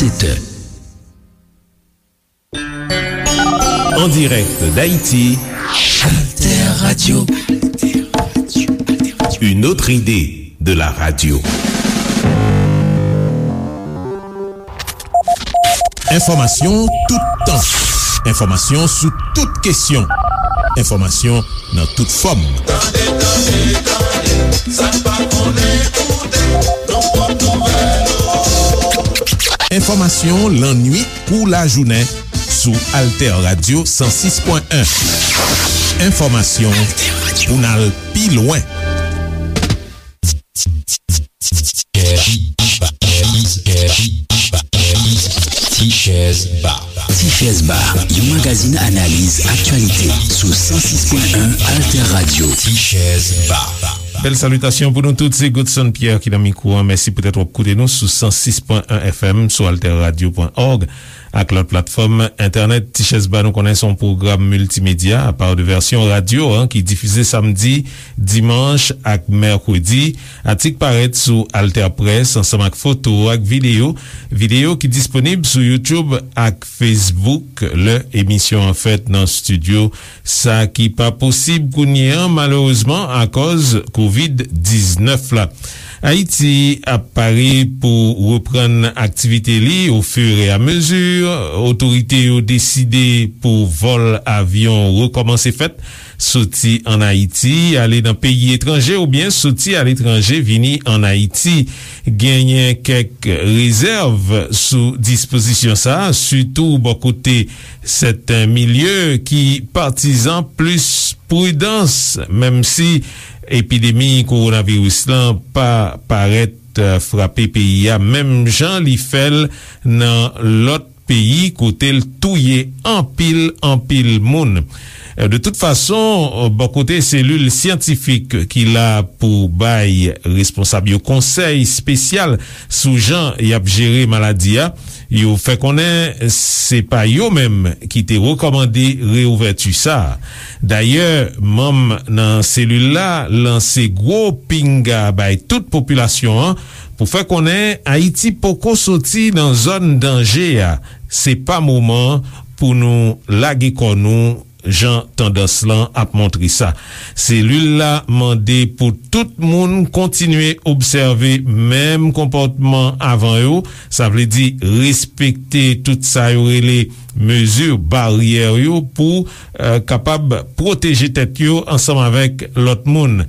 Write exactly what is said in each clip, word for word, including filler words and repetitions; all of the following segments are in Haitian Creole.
Sept heures. En direct d'Haïti, Alter Radio. Une autre idée de la radio. Enfòmasyon toutan. Enfòmasyon sou tout kesyon. Enfòmasyon nan tout fòm. Tande, tande, tande, sa n pa konnen, koute, nou pran nouvèl ou. Enfòmasyon lannwit kou lajounen sou Alter Radio san sis pwen en. Enfòmasyon pou n al pi lwen. Ti Chèz Ba. Ti Chèz Ba, yon magazin analiz aktyalite sou san sis pwen en Alter Radio. Ti Chèz Ba. Bèl salitasyon pou nou tout, se Godson Pierre ki nan mikwo a. Mèsi poutèt w ap koute nou sou san sis pwen en F M, sou alter radio pwen org ak lòt platfòm entènèt. Ti Chèz Ba, nou konnen se yon pwogram miltimedya, apa de vèsyon radyo, an, ki difize samdi, dimanch ak mèkredi. Atik parèt sou Alter Press ansanm ak foto ak videyo, videyo ki disponib sou YouTube ak Facebook lè emisyon an fèt nan estidyo, sa ki pa posib kounye a, malerezman, akòz kovid diznèf la. Ayiti ap pare pou reprann aktivite li ofiramezu. Otorite yo deside pou vòl avyon rekòmanse fèt, soti ann Ayiti, ale nan peyi etranje oubyen soti aletranje, vini ann Ayiti. Genyen kèk rezèv sou dispozisyon sa a, sitou bò kote sèten milye ki patizan plis pridans, menm si epidemi kowonaviris lan pa parèt, eh, frape peyi a menm jan li fè l nan lòt peyi kote l touye anpil, anpil moun. Eh, de tout fason, eh, bò kote selil syantifik ki la pou bay responsab yo konsèy espesyal sou jan y ap jere maladi a, yo fè konnen se pa yo menm ki te rekòmande reouvèti sa a. Dayè, manm nan selil la lanse gwo pinga bay tout popilasyon an pou fè konnen Ayiti poko soti nan zòn danje a. Se pa moman pou nou lage kò nou jan tandans lan ap montre sa. Selil la mande pou tout moun kontinye obsève menm konpòtman avan yo, sa vle di respekte tout sa yo rele mezi baryè yo pou, eh, kapab pwoteje tèt yo ansanm avèk lòt moun.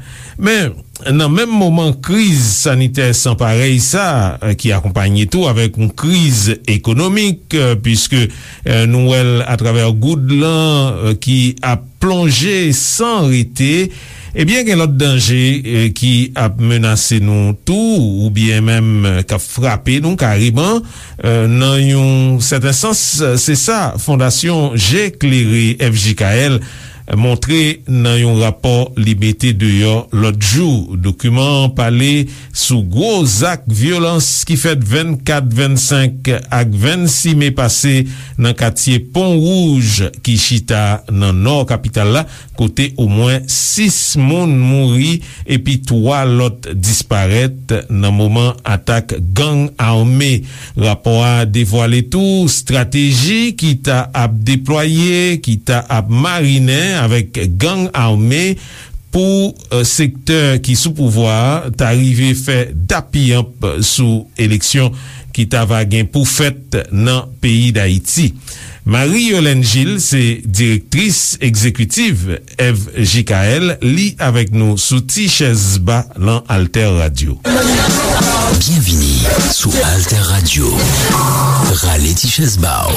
Men, nan menm moman kriz sanitè san parèy sa, eh, ki akonpanye tou avèk yon kriz ekonomik, eh, piske, eh, nou wè l atravè goud lan, eh, ki ap plonje san rete, ebyen, gen lòt danje, eh, ki ap menase nou tou, oubyen menm, eh, k ap frape nou kareman. Eh, nan yon sèten sans, eh, se sa Fondasyon Je Klere, F J K L, montre nan yon rapò li mete deyò lòt jou. Dokiman an pale sou gwo zak vyolans ki fèt vennkat, vennsenk ak vennsis me pase nan katye Pon Wouj ki chita nan nò kapital la, kote omwen sis moun mouri epi twa lòt disparèt nan moman atak gang ame. Rapò a devwale tou estrateji ki ta ap deplwaye, ki ta ap marinen avèk gang ame pou, eh, sektè ki sou pouvwa a ta rive fè dappiyanp sou eleksyon ki ta va gen pou fèt nan peyi Dayiti. Marie Yolène Gilles se direktris egzekitiv F J K L, li avèk nou sou Ti Chèz Ba lan Alter Radio. Byenvini sou Alter Radio. Rale ti chèz ba w.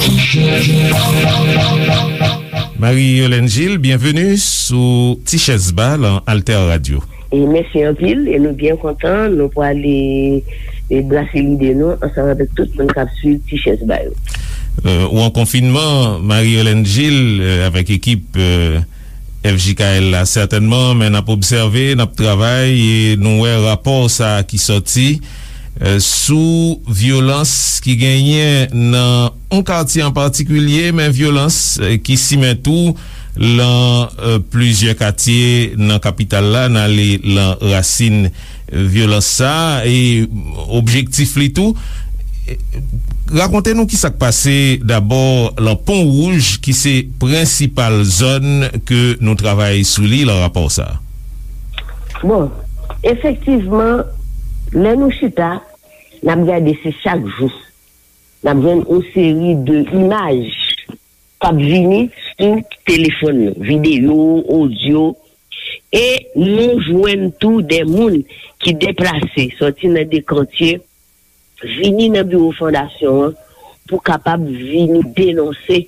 Marie Yolène Gilles, byenveni sou Ti Chèz Ba lan Alter Radio. E mèsi anpil, e nou byen kontan, nou pwale, e brase lide nou ansanm avèk tout moun k ap swiv Ti Chèz Ba yo. Euh, ou an konfinman, Marie Yolène Gilles, euh, avèk ekip, euh, F J K L la, sètènman, men n ap obsève, n ap travay, e nou wè rapò sa a ki sòti, euh, sou vyolans ki genyen nan yon katye an patikilye, men vyolans, euh, ki simen tou lan, euh, plizyè katye nan kapital la, n ale lan rasin, euh, vyolans sa a, e objektif li tou, Rakonte nou ki sa k pase dabò lan Pon Wouj, ki se prensipal zòn ke nou travay sou li lan rapò sa a. Bon, efektivman, lè nou chita, n ap gade se chak jou n ap jwenn yon seri de imaj k ap vini sou telefòn nou, videyo, odyo, e nou jwenn tou de moun ki deplase sòti nan de kantye vini nan biwo fondasyon an pou kapab vini denonse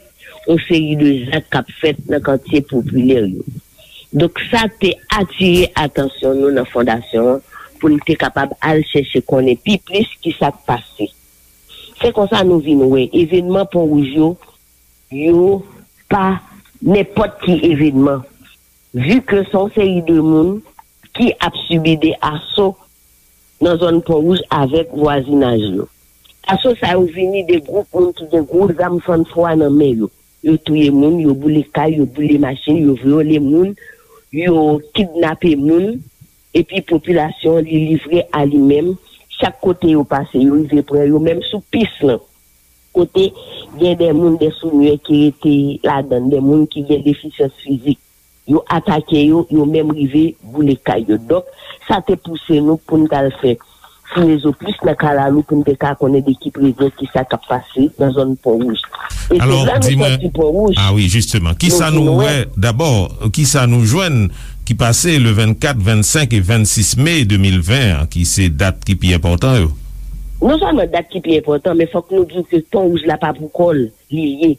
yon seri de zak k ap fèt nan katye popilè yo. Donk, sa te atire atansyon nou nan fondasyon an pou n te kapab al chèche konnen pi plis ki sa k pase. Se konsa nou vin wè evènman Pon Wouj yo, yo pa nenpòt ki evènman, vi ke se yon seri de moun ki ap sibi de aso nan zòn Pon Wouj avèk vwazinaj yo. Aso sa yo vini de gwoup moun ki gen gwo zam fannfwa nan men yo. Yo touye moun, yo boule kay, yo boule machin, yo vyole moun, yo kidnape moun, epi popilasyon an li livre a li menm. Chak kote yo pase, yo rive pran yo, menm sou pis lan. Kote gen de moun, de sounye ki rete ladan, de moun ki gen defisyans fizik. Yo atake yo, yo menm rive boule kay yo. Donk, sa te pouse nou pou n t al fè fouye zo plis nan kalalou pou n te ka konnen de ki prezyon ki sa k ap pase nan zòn Pon Wouj. E se la nou sòti Pon Wouj. Ah wi, jisteman. Kisa nou wè dabò, kisa nou jwenn ki pase le vennkat, vennsenk e vennsis me de mil ven an, ki se dat ki pi enpòtan yo? Non sèlman dat ki pi enpòtan, men fòk nou di w ke Pon Wouj la pa pou kò l li ye.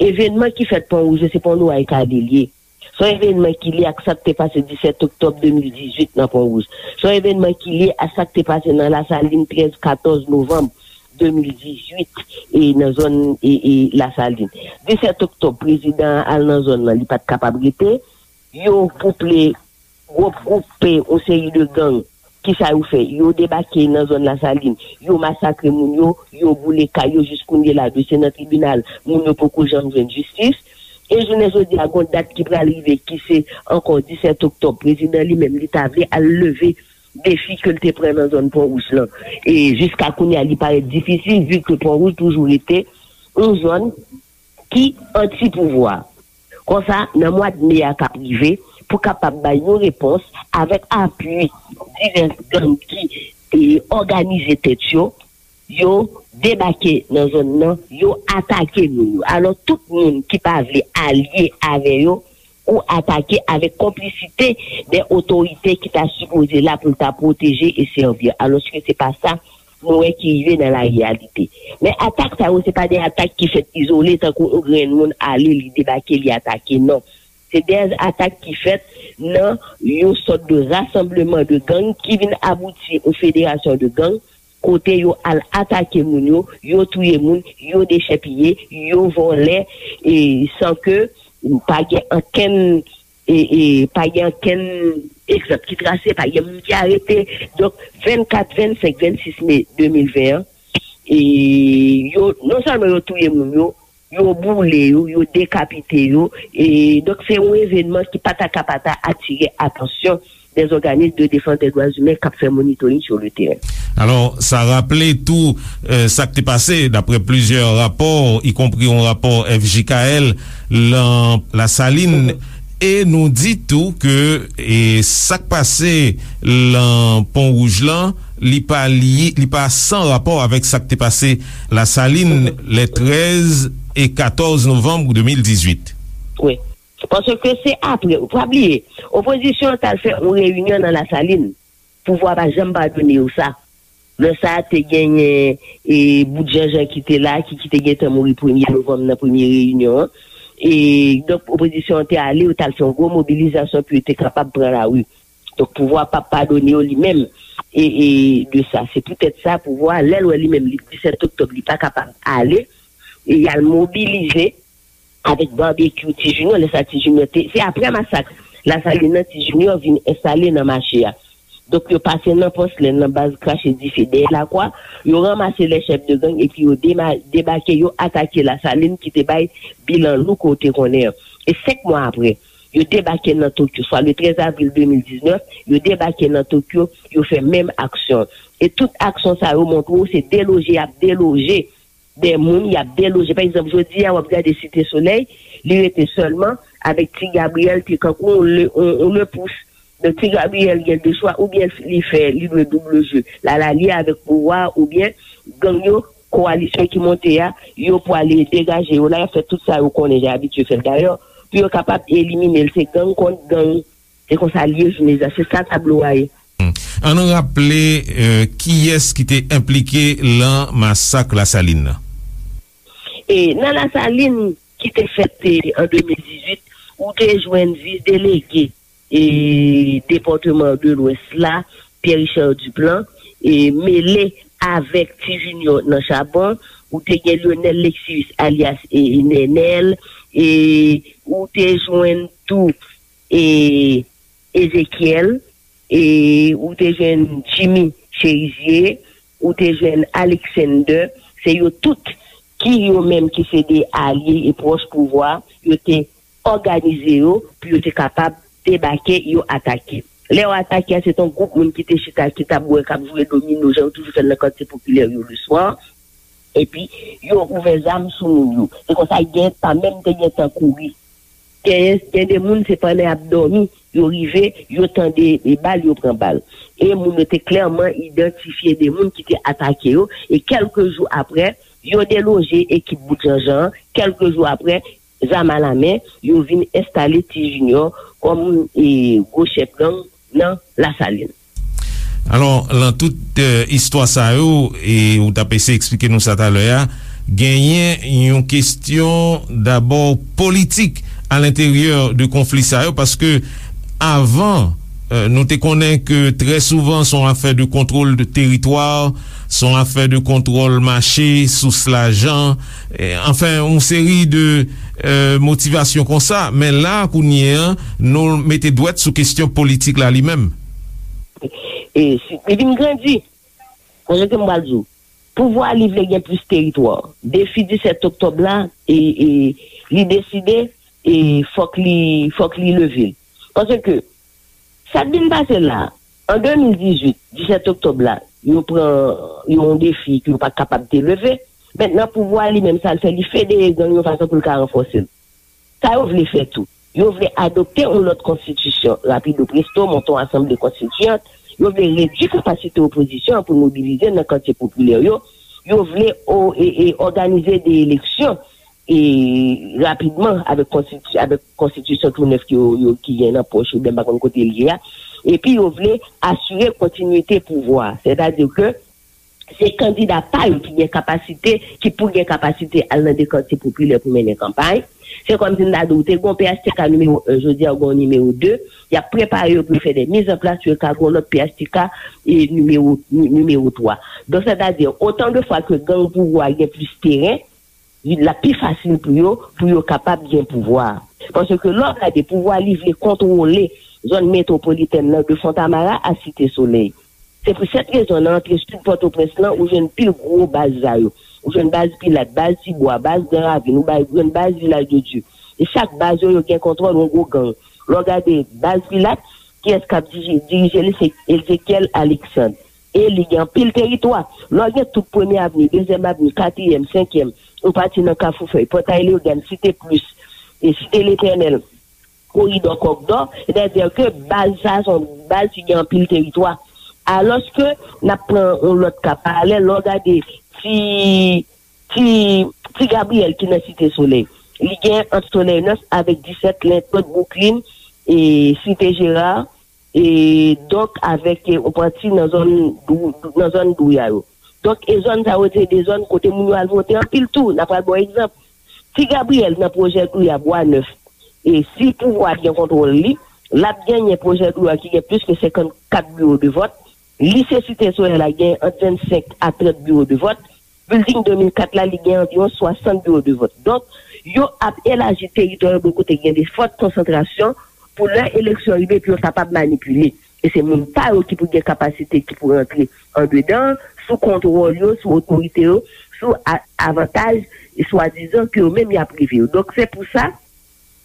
Evènman ki fèt Pon Wouj yo, se pa yon lwa e kade l ye. Se yon evènman ki lye ak sa k te pase disèt oktòb de mil dizuit nan Pon Wouj. Se yon evènman ki lye ak sa k te pase nan Lasalin trèz, katòz novanm de mil dizuit e nan zòn e, e Lasalin. Disèt oktòb, prezidan an al nan zòn nan, li pa t kapab rete. Yo kouple gwoup, gwoup, yon seri de gang. Kisa yo fè? Yo debake nan zòn Lasalin, yo masakre moun yo, yo boule kay yo, jis kounye la dosye nan tribinal, moun yo poko janm jwenn jistis. E jounen jodi a, gon dat ki pral rive ki se ankò disèt oktòb, prezidan li menm li ta vle al leve defi ke l te pran nan zòn Pon Wouj lan. E jiska kounye a li parèt difisil, vi ke Pon Wouj toujou rete yon zòn ki anti pouvwa. Konsa, nan mwa d me a k ap rive, pou kapab bay yon repons avèk apui divès gang ki e, òganize tèt yo, yo debake nan zòn nan, yo atake moun yo. Alò, tout moun ki pa vle alye avè yo, ou atake avèk konplisite de otorite ki ta sipoze la pou l ta pwoteje e sèvi. Alòske se pa sa nou wè ki rive nan lareyalite. Men atak sa yo, se pa de atak ki fèt izole, tankou yon grenn moun ale, li debake, li atake, non. Se de atak ki fèt nan yon sòt de rasanbleman de gang ki vin abouti yon federasyon de gang, kote yo al atake moun yo, yo touye moun, yo dechèpiye, yo vòlè, e san ke pa gen ankenn e, e pa gen ankenn egzanp ki trase, pa gen moun ki arete. Donk, vennkat, vennsenk, vennsis me de mil ven an, e yo, non sèlman yo touye moun yo, yo boule yo, yo dekapite yo. E donk, se yon evènman ki pa ta ka pa ta atire atansyon dè òganis de defans dè dwa imen k ap fè monitoring sou le teren. Alò, sa raple tou, e, sa k te pase, daprè plizyè rapò, ikonpri yon rapò F J K L, lan Lasalin, e nou di tou ke, e, sa k pase lan Pon Wouj lan, li pa li, li pa san rapò avèk sa k te pase Lasalin, le trèz e katòz novanm de mil dizuit. Wi. Paske se apre, ou pa bliye, opozisyon an t al fè yon reyinyon nan Lasalin. Pouvwa pa janm padone yo sa. Lè sa a, te genyen, e, bout Janjan ki te la, ki, ki te gentan mouri premye novanm nan premye reyinyon an. E, donk, opozisyon an te ale, yo t al fè yon gwo mobilizasyon pou yo te kapab pran lari. Donk, pouvwa p ap padone yo li menm, e, e, de sa. Se poutèt sa, pouvwa a, lè l wè li menm, li, disèt oktòb, li pa kapab ale, e y al mobilize avèk Babekyou, Ti Junior, lè sa Ti Junior te, se aprè masak Lasalin nan, Ti Junior vin enstale nan mache a. Donk, yo pase nan Pòs Lenn, nan baz Krache Dife, dèyè Lakwa, yo ranmase lè chèf de gang, epi yo dema-, debake, yo atake Lasalin ki te bay bilan lou ke w te konnen an. E senk mwa aprè, yo debake nan Tokyo, swa le trèz avril de mil diznèf, yo debake nan Tokyo, yo fè menm aksyon. E tout aksyon sa yo montre w se deloje y ap deloje de moun, y ap deloje. Pa egzanp, jodi a, w ap gade Site Solèy, li rete sèlman avèk Ti Gabriyèl, te kankou yon le, yon, yon le pous. Donk, Ti Gabriyèl gen de chwa, oubyen li fè, li dwe double jeu. L al alye avèk pouvwa, oubyen gang yo, kowalisyon ki monte a, yo pwale degaje yo la, y ap fè tout sa yo konnen, jan abitye fè l dayè, pou yo kapab elimine l. Se gang kont gang. Se konsa l ye jounen jodi a. Se sa tablo a ye. An nou raple, euh, kiyès ki te enplike lan masak Lasalin nan? E nan Lasalin ki te fèt, e, an de mil dizuit, ou te jwenn vis delege, e, depatman de Lwès la, Pierre Richard Duplan, e, mele avèk Ti Junior nan Chabon, ou te gen Lionel Lexius alyas, e, Nènèl, e, ou te jwenn tou, e, Ezekiel, e, ou te jwenn Jimmy Chérizier, ou te jwenn Alexander, se yo tout ki yo menm ki se de alye e pwòch pouvwa, yo te òganize yo pou yo te kapab debake, yo atake. Lè yo atake a, se te yon gwoup moun ki te chita, ki t ap bwè, k ap jwe domino, jan yo toujou fè l nan katye popilè yo le swa. Epi, yo ouvè zam sou moun yo. Se konsa, gen pa menm te gen tan kouri. Gen, gen de moun, se pandan y ap dòmi, yo rive, yo tande e bal, yo pran bal. E moun yo te klèman idantifye de moun ki te atake yo. E kèlke jou apre, yo deloje ekip bout janjan an. Kèlke jou apre, zam alamen, yo vin enstale Ti Junior kòm, e, gwo chèf gang nan Lasalin. Alò, lan tout, euh, istwa sa yo, e ou t ap eseye eksplike nou sa talè a, genyen yon kesyon dabò politik a lenteryè de konfli sa yo, paske avan, euh, nou te konnen ke trè souvan se yon afè de kontwòl de teritwa, se yon afè de kontwòl mache, sous lajan, e, anfen, yon seri de, euh, motivasyon konsa. Men la, kounye a, nou mete dwèt sou kesyon politik la li menm. E si, li vin grandi. Konsa ke m pral di w, pouvwa li vle gen plis teritwa. Defi disèt oktòb la, e, e, li deside, e, fòk li, fòk li leve l. Paske, sa k vin pase la, an de mil dizuit, disèt oktòb la, yo pran yon defi ke yo pa t kapab te leve. Mentnan, pouvwa li menm, sa l fè, li federe gang yon fason pou l ka ranfòse l. Sa yo vle fè tou. Yo vle adopte yon lòt konstitisyon rapido presto, monte yon asanble konstitiyant. Yo vle redui kapasite opozisyon an pou mobilize nan katye popilè yo. Yo vle o, e, e, òganize de eleksyon, e, rapidman avèk konstiti-, avèk konstitisyon tou nèf ki yo, yo, ki gen nan pòch yo, ben m pa konn kote l ye a. Epi yo vle asire kontinite pouvwa. Sètadi ke se kandida pa yo ki gen kapasite, ki pou gen kapasite al nan de katye popilè pou mennen kanpay. Se kòmsi m ta di w, te gen yon P H T K nimewo en, jodi a ou gen yon nimewo de, y ap prepare yo pou yo fè de mizanplas pou yo ka gen yon lòt P H T K, e, nimewo, ni-, nimewo twa. Donk, sètadi, otan de fwa ke gang pouvwa gen plis teren, l ap pi fasil pou yo, pou yo kapab gen pouvwa a. Paske lè w gade, pouvwa li vle kontwole zòn metwopolitèn nan de Fontamara a Site Solèy. Se pou sèt rezon, nan antre sid Pòtoprens lan, ou jwenn pil gwo baz sa yo. Ou jwenn baz Pilat, baz Tibwa, baz Gran Ravin, ou bay, jwenn baz Vilaj de Dye. E chak baz yo, yo gen kontwòl yon gwo gang. Lè w gade baz Pilat, kiyès k ap diji-, dirije li? Se Ezekiel Alexandre. E li gen anpil teritwa. Lè w gen tout Premye Avni, Dezyèm Avni, Katriyèm, Senkyèm, ou pati nan Kafou Fèy, Pòtay Leyogàn, Site Plis, e Site Letènèl, Koridò Kòkdò, sètadi ke baz sa a se yon baz ki gen anpil teritwa. Alòske, n ap pran yon lòt ka paralèl, lè w gade ti, ti, ti Gabriyèl ki nan Site Solèy, li gen ant Solèy Nèf avèk disèt, Lentwòt, Bouklin, e Site Jera, e donk avèk, e, yon pati nan zòn Dou-, nan zòn Douya yo. Donk, e zòn sa yo, se de zòn kote moun yo al vote anpil tou. N a pral ba w egzanp. Ti Gabriyèl nan pwojè Douya, Bwa Nèf. E si pouvwa a gen kontwòl li, l ap genyen pwojè Douya ki gen plis ke senkannkat biwo de vòt. Lise Site Solèy la gen ant vennsenk a trant biwo de vòt. Bilding de mil kat la, li gen anviwon swasant biwo de vòt. Donk, yo ap elaji teritwa yo bò kote gen de fòt konsantrasyon pou lè eleksyon rive, pou yo kapab manipile. E se moun pa yo ki pou gen kapasite, ki pou rantre andedan, sou kontwòl yo, sou otorite yo, sou a-, avantaj, e swadizan ke yo menm y ap rive yo. Donk, se pou sa,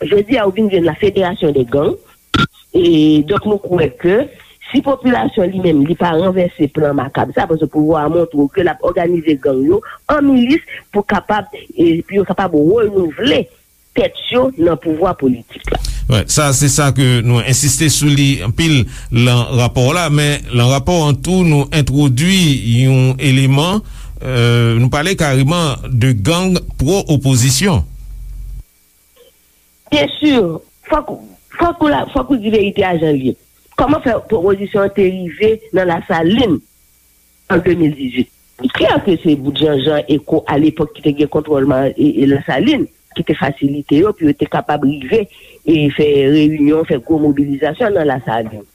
Jodi a, ou vin jwenn la fédération des gangs. E donk, nou kwè ke si popilasyon li menm, li pa ranvèse plan makab sa, paske pouvwa a montre w ke l ap òganize gang yo an milis pou kapab, e pou yo kapab renouvle tèt yo nan pouvwa politik la. Wè, sa se sa ke nou ensiste sou li anpil lan rapò la, men lan rapò an tou nou entwodui yon eleman, euh, nou pale kareman de gang pwo-opozisyon. Byen si, fòk, fòk ou la, fòk ou di verite a jan l ye. Kòman fè pwopozisyon an te rive nan Lasalin an de mil dizuit? Li klè ke se bout Janjan Eko alepòk ki te gen kontwòl ma- e, e Lasalin, ki te fasilite yo pou yo te kapab rive e fè reyinyon, fè gwo mobilizasyon nan Lasalin.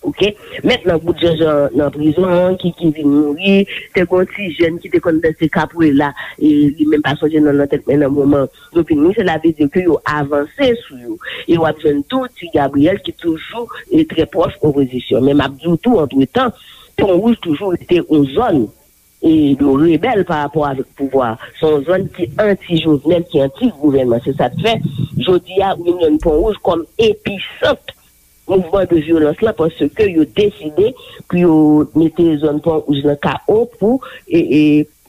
Oke? Mentnan, bout Janjan nan prizon an, ki, ki vin mouri, te gen yon ti jèn ki te konn danse kapwela, e li menm pa sonje non l nan tèt mwen nan moman yo vin mouri, cela veut dire ke yo avanse sou yo. E w ap jwenn tou Ti Gabriel ki toujou e trè pwòch opozisyon. Men m ap di w tou, antretan, Pon Wouj toujou rete yon zòn e yo rebèl pa rapò avèk pouvwa. Se yon zòn ki anti-Jovenel, ki anti-gouvènman. Se sa k fè, jodi a, ou vin jwenn Pon Wouj kòm episant mouvman de vyolans lan, paske yo deside pou yo mete zòn Pon Wouj lan K O pou e, e,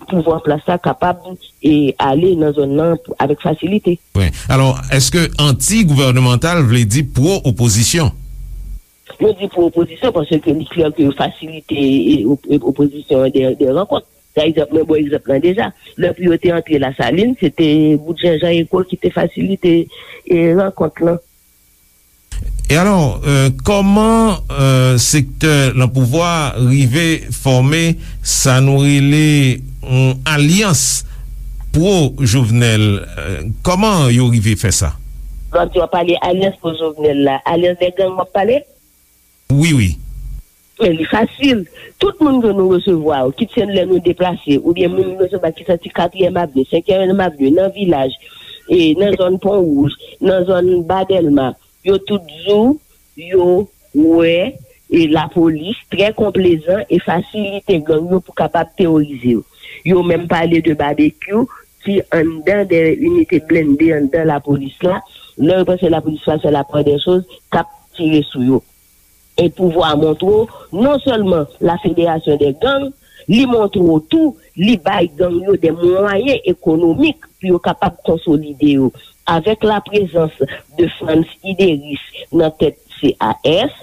pouvwa an plas la kapab e, ale nan zòn nan avèk fasilite. Wi. Alò, èske anti-gouvènemantal vle di pwo-opozisyon? Nou di pwo-opozisyon paske li klè ke yo fasilite e, op- e, opozisyon an de, de rankont. Pa egzanp, mwen ba w egzanp lan deja. Lè pou yo te antre Lasalin, se te bout Janjan Eko ki te fasilite e, rankont lan. E alò, euh, kòman euh, sektè lan pouvwa rive fòme sa nou rele yon alyans pwo-Jovenel? Euh, kòman yo rive fè sa? Lè w ap di w ap pale alyans pwo-Jovenel la, alyans dè gang w ap pale? Wi, wi. Men li fasil. Tout moun ke nou resevwa yo, kit se lè nou deplase, oubyen moun nou resevwa ki soti Katriyèm Avni, Senkyèm Avni, nan vilaj, e nan zòn Pon Wouj, nan zòn Ba Dèlma, yo tout di w yo wè e lapolis trè konplezan e fasilite gang yo pou kapab teworize yo. Yo menm pale de babekyou ki anndan de inite blende anndan lapolis la. Lè yo panse lapolis pa fè lapwè dè choz, k ap tire sou yo. E pouvwa a montre w, non sèlman la fédération des gangs, li montre w tou, li bay gang yo de mwayen ekonomik pou yo kapab konsolide yo. Avèk la prezans de Frantz Ideris nan tèt C A S,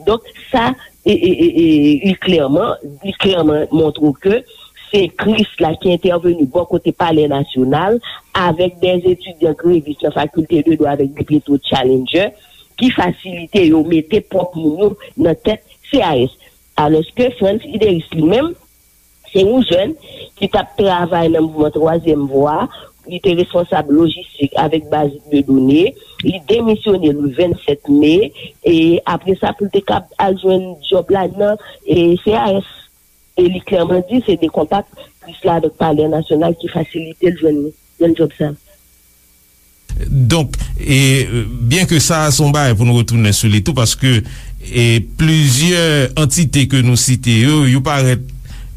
donk sa, e, e, e, e, li klèman, li klèman montre w ke se Kris la ki entèveni bò kote Palè Nasyonal avèk de etidyan grevis nan Fakilte de Dwa avèk de Petro Challenger ki fasilite yo mete pwòp moun yo nan tèt C A S. Alòske Frantz Ideris li menm, se yon jèn ki t ap travay nan mouvman Twazyèm Vwa, li te responsab lojistik avèk baz de done, li demisyone le vennsèt me, e apre sa pou l te kab al jwenn djòb la nan e, C A S. E li klèman di se de kontak plis la avèk Palè Nasyonal ki fasilite l jwenn, jwenn djòb sa. Donk, e, byen ke sa a se yon bagay pou nou retounen sou li tou, paske e, plizyè antite ke nou site yo, yo parèt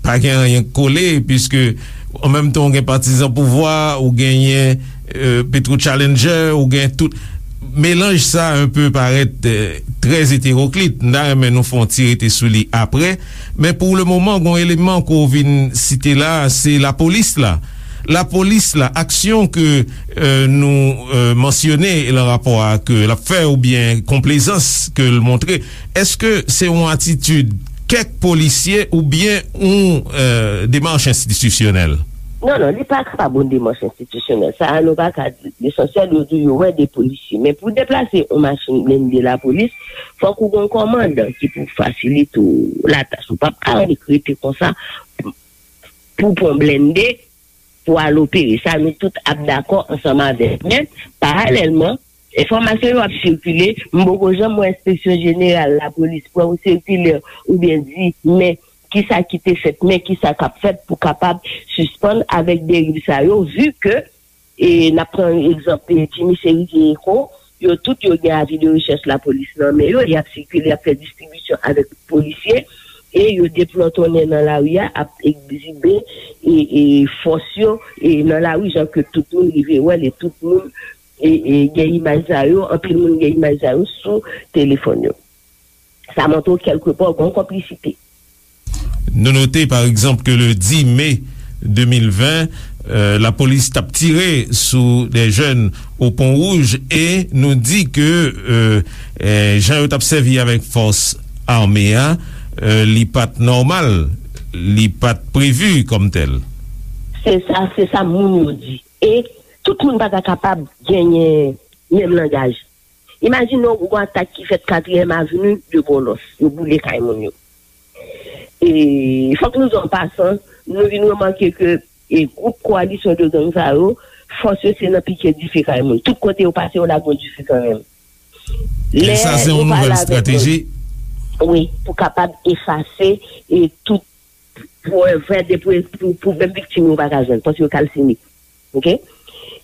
pa gen anyen k kole, piske an menm tan ou gen patizan pouvwa, ou genyen e, Petro Challenger, ou gen tout melanj sa a enpe parèt e, trè eteroklit. M ta renmen nou fè yon ti rete sou li apre. Men pou le moman, gen yon eleman ke w vin site la, se lapolis la. Lapolis la, aksyon ke e, nou e, mansyone lan rapò a ke l ap fè oubyen konplezans ke l montre, èske se yon atitid kèk polisye oubyen yon e, demach enstitisyonèl? Non, non, li pa kapab yon demach enstitisyonèl. Sa a, nou pa ka di. Lesansyèl, yo di yo wè de polisye. Men pou deplase yon machin blende lapolis, fòk ou gen yon kòmandan ki pou fasilite w latach. Ou p ap ka annik rete konsa pou pran blende pou al opere. Sa, nou tout ap dakò ansanm avèk. Men, paralèlman, enfòmasyon yo ap sikile, m poko janm wè Enspeksyon Jeneral Lapolis pran yon sikilè oubyen di, men kisa ki te fèt, men kisa k ap fèt pou kapab sispann avèk deriv sa yo, vi ke, e, n ap pran egzanp, e, Jimmy Chérizier Eko, yo tout yo gen avi de rechèch lapolis nan men yo, y ap sikile, y ap fè distribisyon avèk polisye, e yo deplòtonnen nan lari a, ap egzibe, e, e, fòs yo, e, nan lari, jan ke tout moun rive wè l, e tout moun e, e, gen imaj sa yo, anpil moun gen imaj sa yo sou telefòn yo. Sa montre w kèlkepò gen yon konplisite. Nou note, pa egzanp, ke le dis me de mil ven, euh, lapolis t ap tire sou de jèn o Pon Wouj e nou di ke euh, euh, jan yo t ap sèvi avèk fòs ame a, euh, li pa t nòmal, li pa t previ kòm tèl. Se sa, se sa moun yo di. E tout moun pa ta kapab genyen menm langaj. Imajine w gon atak ki fèt Katriyèm Avni de Bòlòs, yo boule kay moun yo. E fòk nou di an pasan, nou vin remake ke e gwoup kowalisyon de gang sa yo, fòs yo se nan pike dife kay moun. Tout kote yo pase, yo lage yon dife kanmenm. E sa se yon nouvèl estrateji. Wi, pou kapab efase e tout pou fè de pou pou pou menm viktim yo pa ka jwenn, paske yo kalsine. Oke?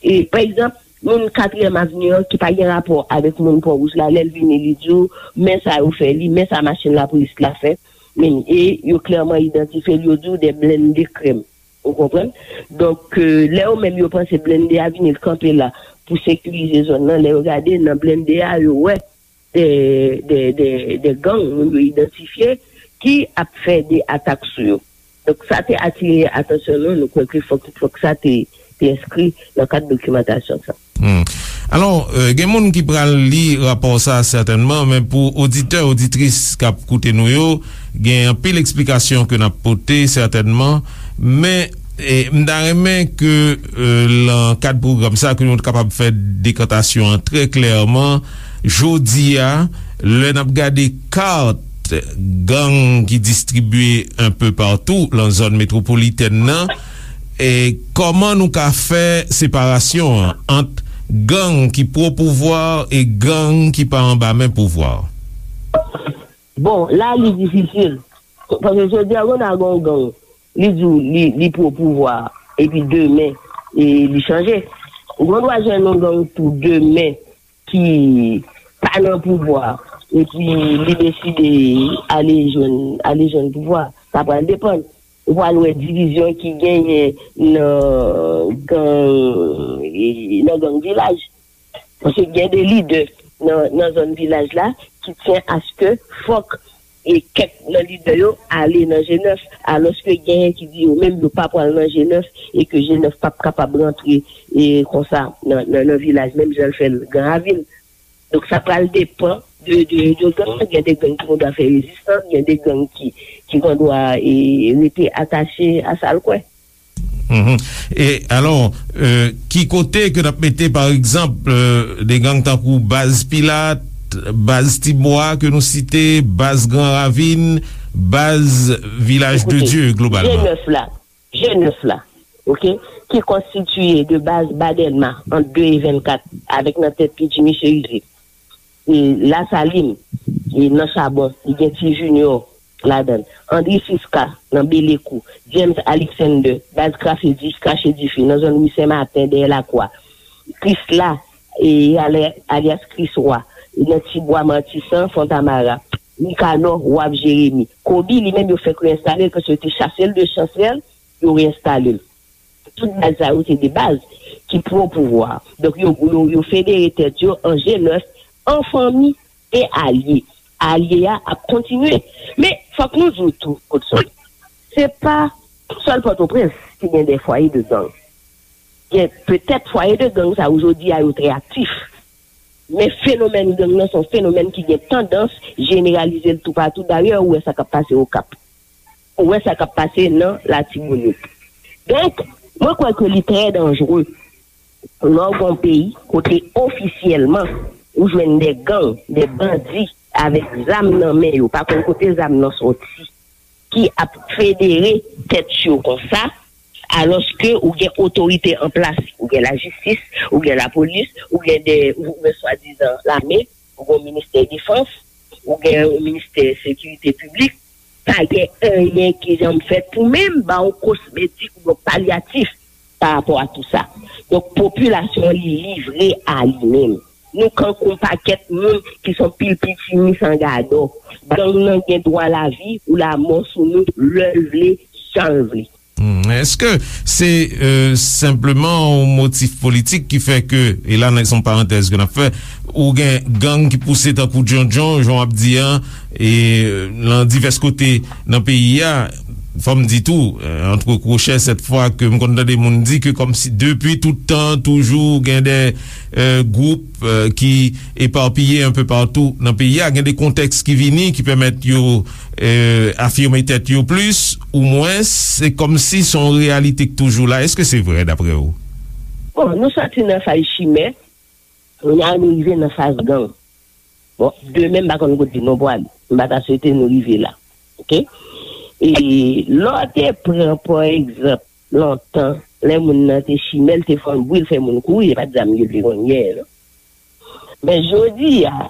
E pa egzanp, moun Katriyèm Avni an ki pa gen rapò avèk moun Pon Wouj la, lè l vini, li di w men sa yo fè li, men sa machin lapolis la fè, men e yo klèman idantifye l, yo di w de blende krèm. Ou konprann? Donk, euh, lè yo menm yo panse blende a vini, l kanpe la pou sekirize zòn nan, lè yo gade nan blende a, yo wè de, de, de, de gang, moun yo idantifye, ki ap fè de atak sou yo. Donk, sa te atire atansyon nou, nou kwè ke fòk, fòk sa te, te enskri nan kad dokimantasyon sa. Hmm. Alò, euh, gen moun ki pral li rapò sa sètènman, men pou oditè, oditris k ap koute nou yo, gen anpil eksplikasyon ke n ap pote sètènman, men e, m ta renmen ke euh, nan kad pwogram sa ke nou kapab fè dekantasyon an trè klèman. Jodi a, lè n ap gade kat gang ki distribye enpe patou nan zòn metwopolitèn nan, e kòman nou ka fè separasyon an ant gang ki pwo pouvwa e gang ki pa anba men pouvwa? Bon, la li difisil. Paske jodi a, gon a gon gang. Li di w li, li pwo pouvwa, epi demen, e li chanje. Ou gen dwa jwenn yon gang tou demen ki pa nan pouvwa, epi li deside ale jwenn, ale jwenn pouvwa. Sa pral depann. Ou pral wè divizyon ki genyen nan gang, e, nan gang vilaj. Paske gen de lidè nan, nan zòn vilaj la ki tyen aske fòk e kèk nan lidè yo ale nan G nèf, alòske genyen ki di yo menm yo pa pral nan G nèf e ke G nèf p ap kapab rantre e konsa nan, nan, nan vilaj, menm jan l fè l Gran Ravin. Donk, sa pral depann de, de, de gang. Gen de gang ki gendwa fè rezistans, gen de gang ki, ki gendwa e, rete atache a sa l kwè. E alò, ki kote ke n ap mete pa egzanp de gang tankou Baz Pilat, Baz Tibwa ke nou site, Baz Gran Ravin, Baz Vilaj de Dye globalman? G nèf la, G nèf la, oke, ki konstitiye de baz Badèlma ant de e vennkat avèk nan tèt li Jimmy Chérizier. E Lasalin, e nan Chabon, li gen Ti Junior ladan l. Andri Siska nan Belekou, James Alexander, baz Krache Di, Krache Dife, nan zòn Ri Sen Maten, dèyè Lakwa. Krisla, e, ale- alyas Kris Wa, nan Ti Bwa Matisan, Fontamara. Nikanò, Waf Jeremi. Kobi, li menm, yo fèk reyensitale l, paske yo te chase l de Chansèl, yo reyensitale l. Tout baz sa yo se de baz ki pwo pouvwa. Donk yo, yo, yo federe tèt yo an G nèf, an fanmi e alye. Alye a ap kontinye. Men fòk nou di w tou, Godson, se pa sèl Pòtoprens ki gen de fwaye de gang. Gen petèt fwaye de gang sa yo jodi a yo trè aktif. Men fenomèn gang nan se yon fenomèn ki gen tandans jeneralize l toupatou. Dayè, ou wè sa k ap pase Okap. Ou wè sa k ap pase nan Latibonit. Donk, mwen kwè ke li trè danjere lè w gen yon peyi kote ofisyèlman ou jwenn de gang, de bandi avèk zam nan men yo, pa konn kote zam nan soti, ki ap federe tèt yo konsa, alòske ou gen otorite an plas, ou gen lajistis, ou gen lapolis, ou gen de, ou gen swadizan lame, ou gen ministè defans, ou gen yon ministè sekirite piblik, pa gen anyen ki janm fèt pou menm ba w kosmetik oubyen palyatif pa rapò a tou sa. Donk, popilasyon an li livre a li menm. Nou kankou yon pakèt moun ki se yon pil pitimi san gadò. Gang nan gen dwa lavi ou lamò sou nou lè l vle, jan l vle. Hmm, èske se, euh, senpleman yon motif politik ki fè ke, e la, nan yon parantèz ke n ap fè, ou gen gang ki pouse tankou djondjon, jan w ap di an, e, euh, nan divès kote nan peyi a, fò m di tou, euh, antre kwochè, sèt fwa ke m konn tande moun di ke kòmsi depi tout tan, toujou gen de, euh, gwoup, euh, ki epapiye enpe patou nan peyi a, gen de kontèks ki vini, ki pèmèt yo, euh, afime tèt yo plis ou mwens, se kòmsi se yon reyalite k toujou la. Èske se vre, dapre w? Bon, nou soti nan faz chimè, kounye a nou rive nan faz gang. Bon, demen, m pa konn kote nou pwale. M pa ta swete nou rive la. Oke? E lè w te pran, pa egzanp, lontan, lè moun nan te chimè, l te fè yon bri, l fè moun kouri, e pa t zam yo te konn gen, non. Men jodi a,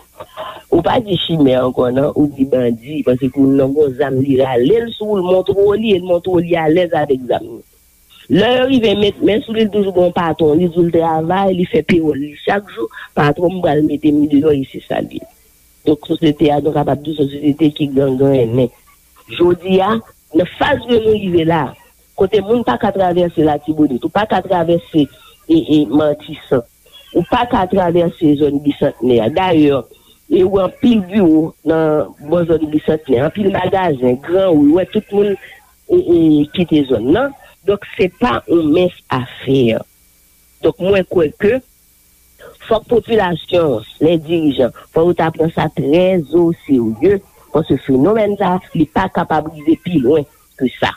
ou pa di chimè ankò, non, ou di bandi, paske moun nan gon zam, li rale l sou ou, l montre w li, e l montre w li alèz avèk zam li. Lè yo rive met men sou li, li toujou gon patwon, li di w l travay, li fè pewòl li chak jou, patwon m pral mete m deyò, e se sa l ye. Donk, sosyete a, nou kapab di w se yon sosyete ki gangrennen. Jodi a, nan faz ke nou rive la, kote moun pa ka travèse Latibonit, ou pa ka travèse, e, e, Matisan, ou pa ka travèse zòn Bisantnè a. Dayè, e, ou wè anpil biwo nan bò zòn Bisantnè, anpil magazen, gran ri, ou wè tout moun, e, e, kite zòn nan. Donk, se pa yon mens afè. Donk, mwen kwè ke fòk popilasyon, lè dirijan, fò yo ta pran sa trè o serye, paske fenomèn sa, li pa kapab rive pi lwen ke sa.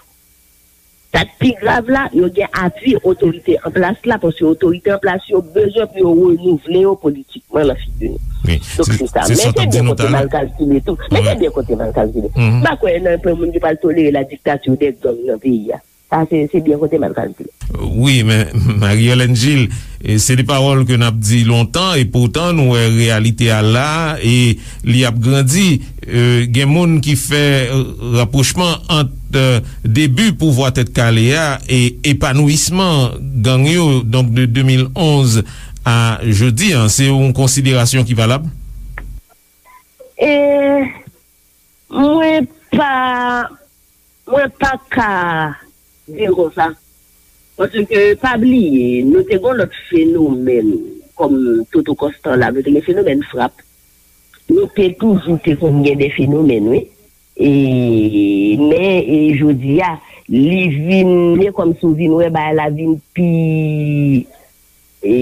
Sa k pi grav la, yo gen apui otorite an plas la, paske otorite an plas yo bezwen pou yo renouvle yo politikman nan figi nou. Wi, donk, se, se sa. Men se byen kote mal kalkile tou. Men se byen kote mal kalkile. M pa kwè nan pwen moun ki pral tolere la diktati de gang nan peyi a. Sa, se, se byen kote mal kalkile. Wi, men Marie-Hélène Gilles, e, se de pawòl ke n ap di lontan, e poutan nou wè reyalite a la, e li ap grandi. E, gen moun ki fè, e, rapwochman ant, e, debi pouvwa Tèt Kale a e epanouisman gang yo, donk de de mil onz a jodi a. Se yon konsiderasyon ki valab? E, mwen pa, mwen pa ka di l konsa. Paske, pa bliye, nou te gen lòt fenomèn, kòm Toto Constant la, nou te gen fenomèn frap. Nou te toujou te konn gen de fenomèn, wi. E, men, e, jodi a, li vin, e kòmsi w vin wè bagay la vin pi, e,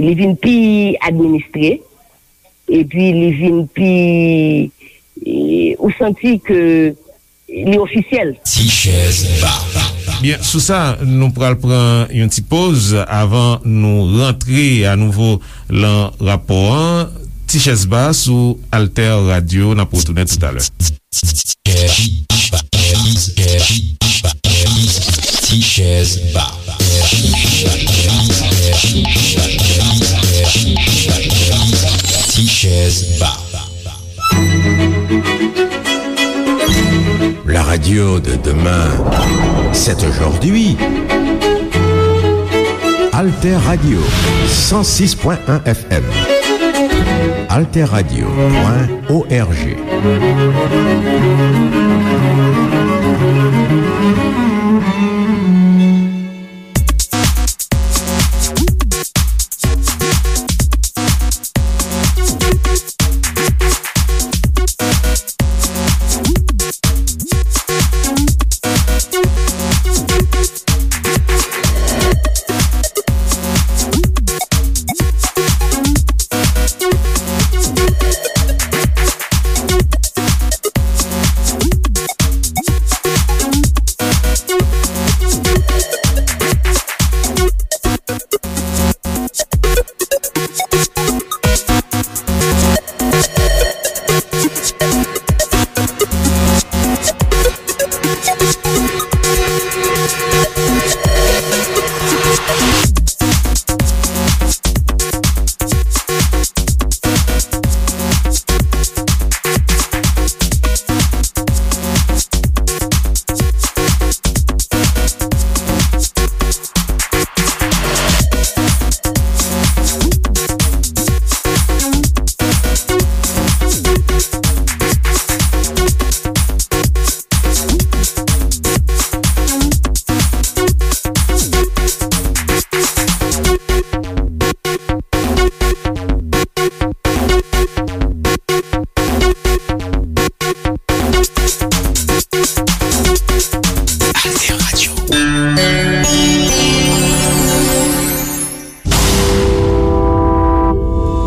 li vin pi administre, epi li vin pi, e, ou santi ke li ofisyèl. Ti chèz ba. Byen, sou sa, nou pral pran yon ti poz avan nou rantre anouvo lan rapò an. Ti chèz ba sou Alter Radio, n ap retounen toutalè. Ti chèz ba. Ti chèz ba. La radio de demain, c'est aujourd'hui. Alter Radio, cent six point un F M. Alter Radio point O R G.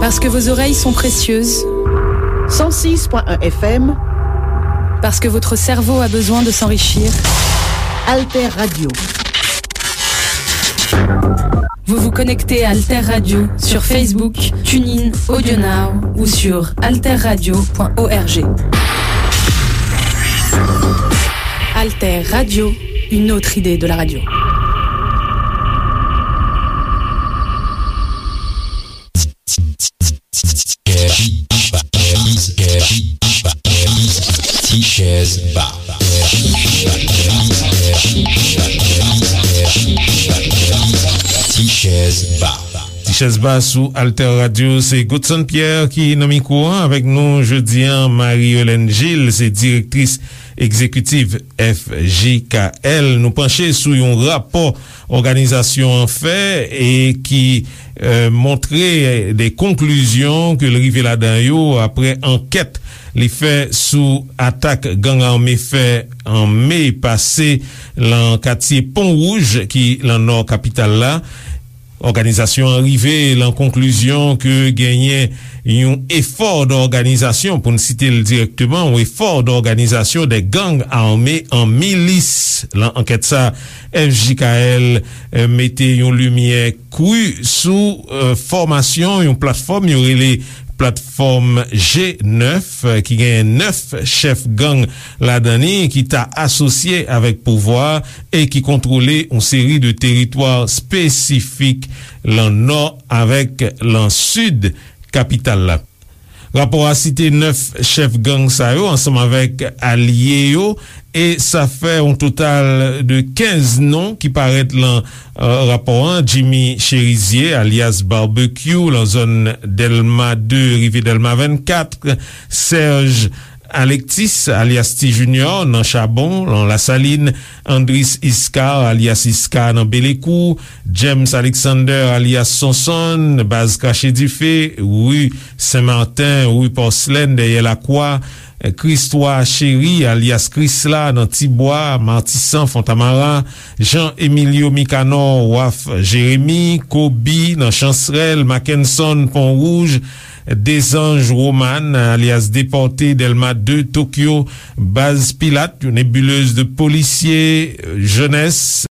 Parce que vos oreilles sont précieuses. Cent six point un F M. Parce que votre cerveau a besoin de s'enrichir. Alter Radio. Vous vous connectez à Alter Radio sur Facebook, TuneIn, AudioNow ou sur alterradio point org. Alter Radio, une autre idée de la radio. Tichèz Ba. Tichèz Ba. Tichèz Ba sou Alter Radio, se Godson Pierre ki nan mikwo a avèk nou jodi a. Marie Hélène Gilles se direktris egzekitif F J K L. Nou panche sou yon rapò òganizasyon an fè e ki, eh, montre de konklizyon ke l rive ladan yo apre ankèt li fè sou atak gang ame fè an me pase lan katye Pon Wouj ki lan nò kapital la. Òganizasyon an rive lan konklizyon ke genyen yon efò dòganizasyon, pou n site l dirèkteman, yon efò dòganizasyon de gang ame an milis. Lan ankèt sa, F J K L, eh, mete yon limyè kri sou, eh, fòmasyon yon platfòm yo rele platfòm G nèf, eh, ki genyen nèf chèf gang ladan li ki ta asosye avèk pouvwa e ki kontwole yon seri de teritwa espesifik lan nò avèk lan sid kapital la. Rapò a site nèf chèf gang sa yo ansanm avèk alye yo, e sa fè yon total de kenz non ki parèt lan, eh, rapò an. Jimmy Cherizier, alyas Barbecue, lan zòn Dèlma de rive Dèlma vennkat, Serge Alexis, alyas Ti Junior, nan Chabon, lan Lasalin, Andris Iscar, alyas Iscar, nan Belekou, James Alexander, alyas Sonson, baz Krache Dife, ri Sen Maten, ri Pòslèn, dèyè Lakwa, Christois Chéry, alyas Krisla, nan Tibwa, Matisan, Fontamara, Jean Emilio Micanor, Waf Jeremi, Kobi, nan Chansrèl, Mackenson, Pon Wouj, Dezanj Roman, alyas Depòte, Dèlma de, Tokyo, baz Pilat, yon nebilez de polisye, jenès.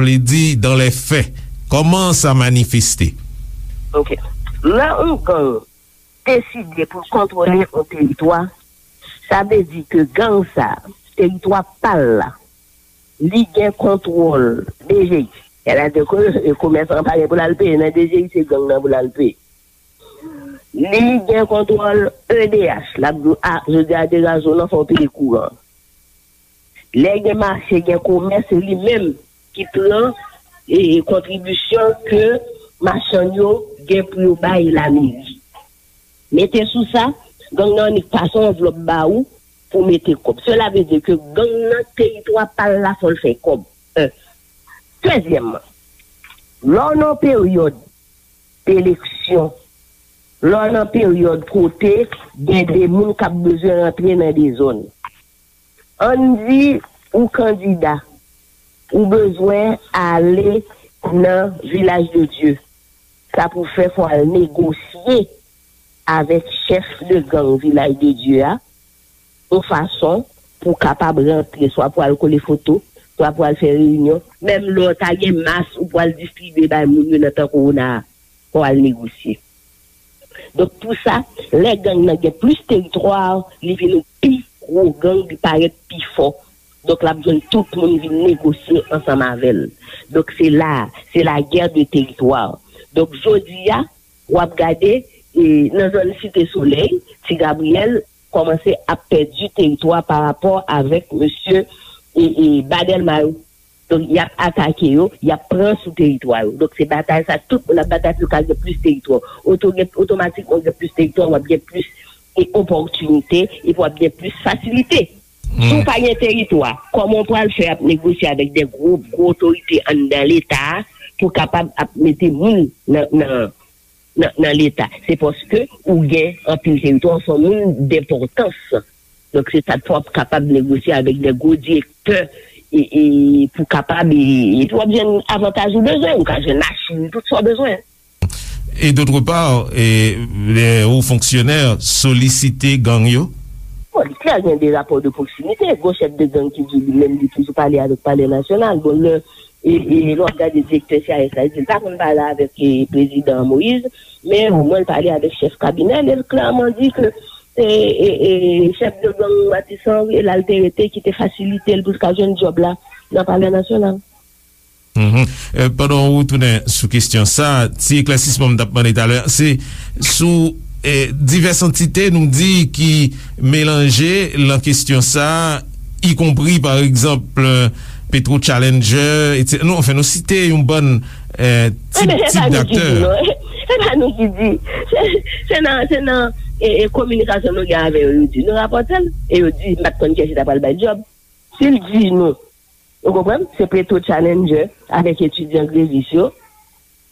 Vle di dans les faits, kòman sa manifeste? Ok. Lè yon gang deside pou l kontwole yon teritwa, sa vle di ke gang sa, teritwa pa l la, li gen kontwòl D G I. Sètadi ke komèsan an pa gen pou l al peye nan D G I, se gang nan pou l al peye. Li gen kontwòl E D H, l ap di w, a, jodi a degaje w nan fè w peye kouran. Lè gen mache, gen komès, se li menm ki pran e, e kontribisyon ke machann yo gen pou yo bay lameri. Mete sou sa, gang nan annik pase yon anvlòp ba ou pou mete kòb. Sela vle di ke gang nan teritwa pa l la fò l fè kòb. En. Dezyèmman, lè w nan peryòd eleksyon, lè w nan peryòd kote gen de moun k ap bezwen rantre nan de zòn. Ann di ou kandida, ou bezwen ale nan Vilaj de Dye. Sa pou fè fò al negosye avèk chèf de gang Vilaj de Dye a, yon fason pou w kapab rantre, swa pou al kole foto, swa pou al fè reyinyon. Menm lè w ta gen mas ou pou al distribye bay moun yo nan tan kowona a, pou al negosye. Donk, pou sa, lè gang nan gen plis teritwa, li vin yon pi gwo gang, li parèt pi fò. Donk, l ap jwenn tout moun vin negosye ansanm avè l. Donk, se la, se la guerre de territoire. Donk, jodi a, w ap gade, e, nan zòn Site Solèy, Ti Gabriyèl kòmanse ap pèdi teritwa pa rapò avèk mesye, e, e, Badelma yo. Donk, y ap atake yo, y ap pran sou teritwa yo. Donk, se batay sa, tout moun ap batay pou yo ka gen plis teritwa. Oto-, gen, otomatikman, w gen plis teritwa, w ap gen plis, e, opòtinite, epi w ap gen plis fasilite. Si w pa gen teritwa, kòman w pral fè ap negosye avèk de gwo, gwo otorite anndan Leta a pou kapab ap mete moun nan, nan, nan, nan Leta? Se paske ou gen anpil teritwa, ou se yon moun denpòtans. Donk, se sa k fè w ap kapab negosye avèk de gwo direktè e, e pou kapab, e, epi w ap jwenn avantaj ou bezwen, ou ka jwenn machin, tout sa w bezwen. Et d'autre part, e, lè wo fonksyonè solisite gang yo? Bon, li klè, gen de rapò de pwoksimite. Gon chèf de gang ki di li menm li toujou pale avèk Palè Nasyonal. Bon, lè, e, e, lè w ap gade direktè C I S la, li di l pa konn pale avèk, e, prezidan Moïse, men omwen l pale avèk chèf kabinè l, e l klèman di ke, e, e, e, chèf de gang Matissan, e la l te rete, ki te fasilite l pou l ka jwenn djòb la nan Palè Nasyonal. Mhm. Euh, pandan w retounen sou kesyon sa, ti eklèsisman m t ap mande talè, se sou, eh, divès antite nou di ki melanje lan kesyon sa, ikonpri, pa egzanp, euh, Petro Challenger, etsetera. Nou, anfen, nou site yon bann, eh, tip, tip daktè. Ebyen, se pa nou ki di, non. Se pa nou ki di. Se, se nan, se nan, e, e, kominikasyon nou gen avè yo, yo di. Nou rapòte l, e yo di, m pa t konn kiyès ki ta pral bay djòb. Si l di nou, ou konprann? Se Petro Challenger avèk etidyan grevis yo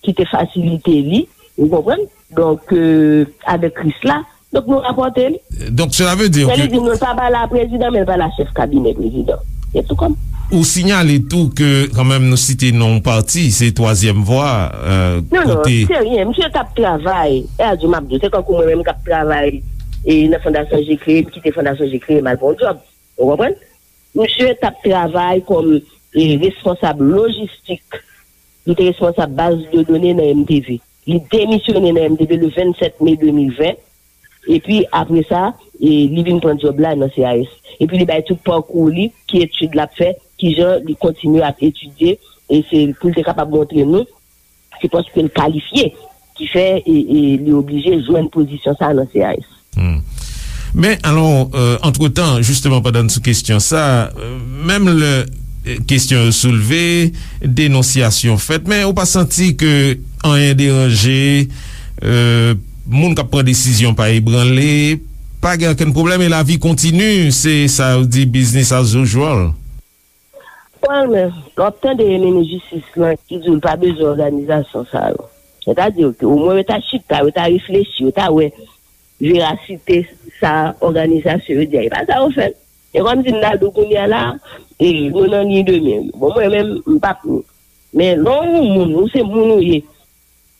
ki te fasilite li, ou konprann? Donk, euh, avèk Krisla, donk nou rapòte li. Donk, sela vle di ke li di nou l pa pale a prezidan, men l pale a chèf kabinè prezidan. Se tou kòm. Ou sinyale tou ke, kanmenm, nou site non pati, se Twazyèm Vwa, euh, non, non, kote se ryen. Misye t ap travay, e a di m ap di w, se kankou mwen menm k ap travay, e nan Fondasyon Je Crée, m kite Fondasyon Je Crée, m al pran yon djòb. Ou konprann? Misye t ap travay kòm, e, responsab lojistik. Li te responsab baz de done nan M T V. Li demisyone nan M T V le vennsèt me de mil ven. Epi, apre sa, e, li vin pran djòb la nan C I S. Epi, li bay tout pakou li, ki etid l ap fè, kijan li kontinye ap etidye, e se pou l te kapab montre nou se paske l kalifye ki fè, e, e, li oblije jwenn pozisyon sa a nan C I S. Hmm. Men, alò, euh, antretan, jisteman, pandan n sou kesyon sa, euh, menm lè, euh, kesyon yo soulve, denonsyasyon fèt, men ou pa santi ke anyen deranje, euh, moun k ap pran desizyon pa ebranle, pa gen okenn pwoblèm e lavi kontini, se sa yo di business as usual? Bon, men, lè w ap tande minis jistis lan ki di w l pa bezwen òganizasyon sa yo. Sètadi ke omwen yo ta chita, yo ta reflechi, yo ta wè verasite sa òganizasyon yo di a. E pa sa yo fè. E kòmsi m ta di w kounye a la, e, nou nan liy de mè yo. Bon, mwen menm, m p ap ni. Men lè w yon moun, ou se moun ou ye,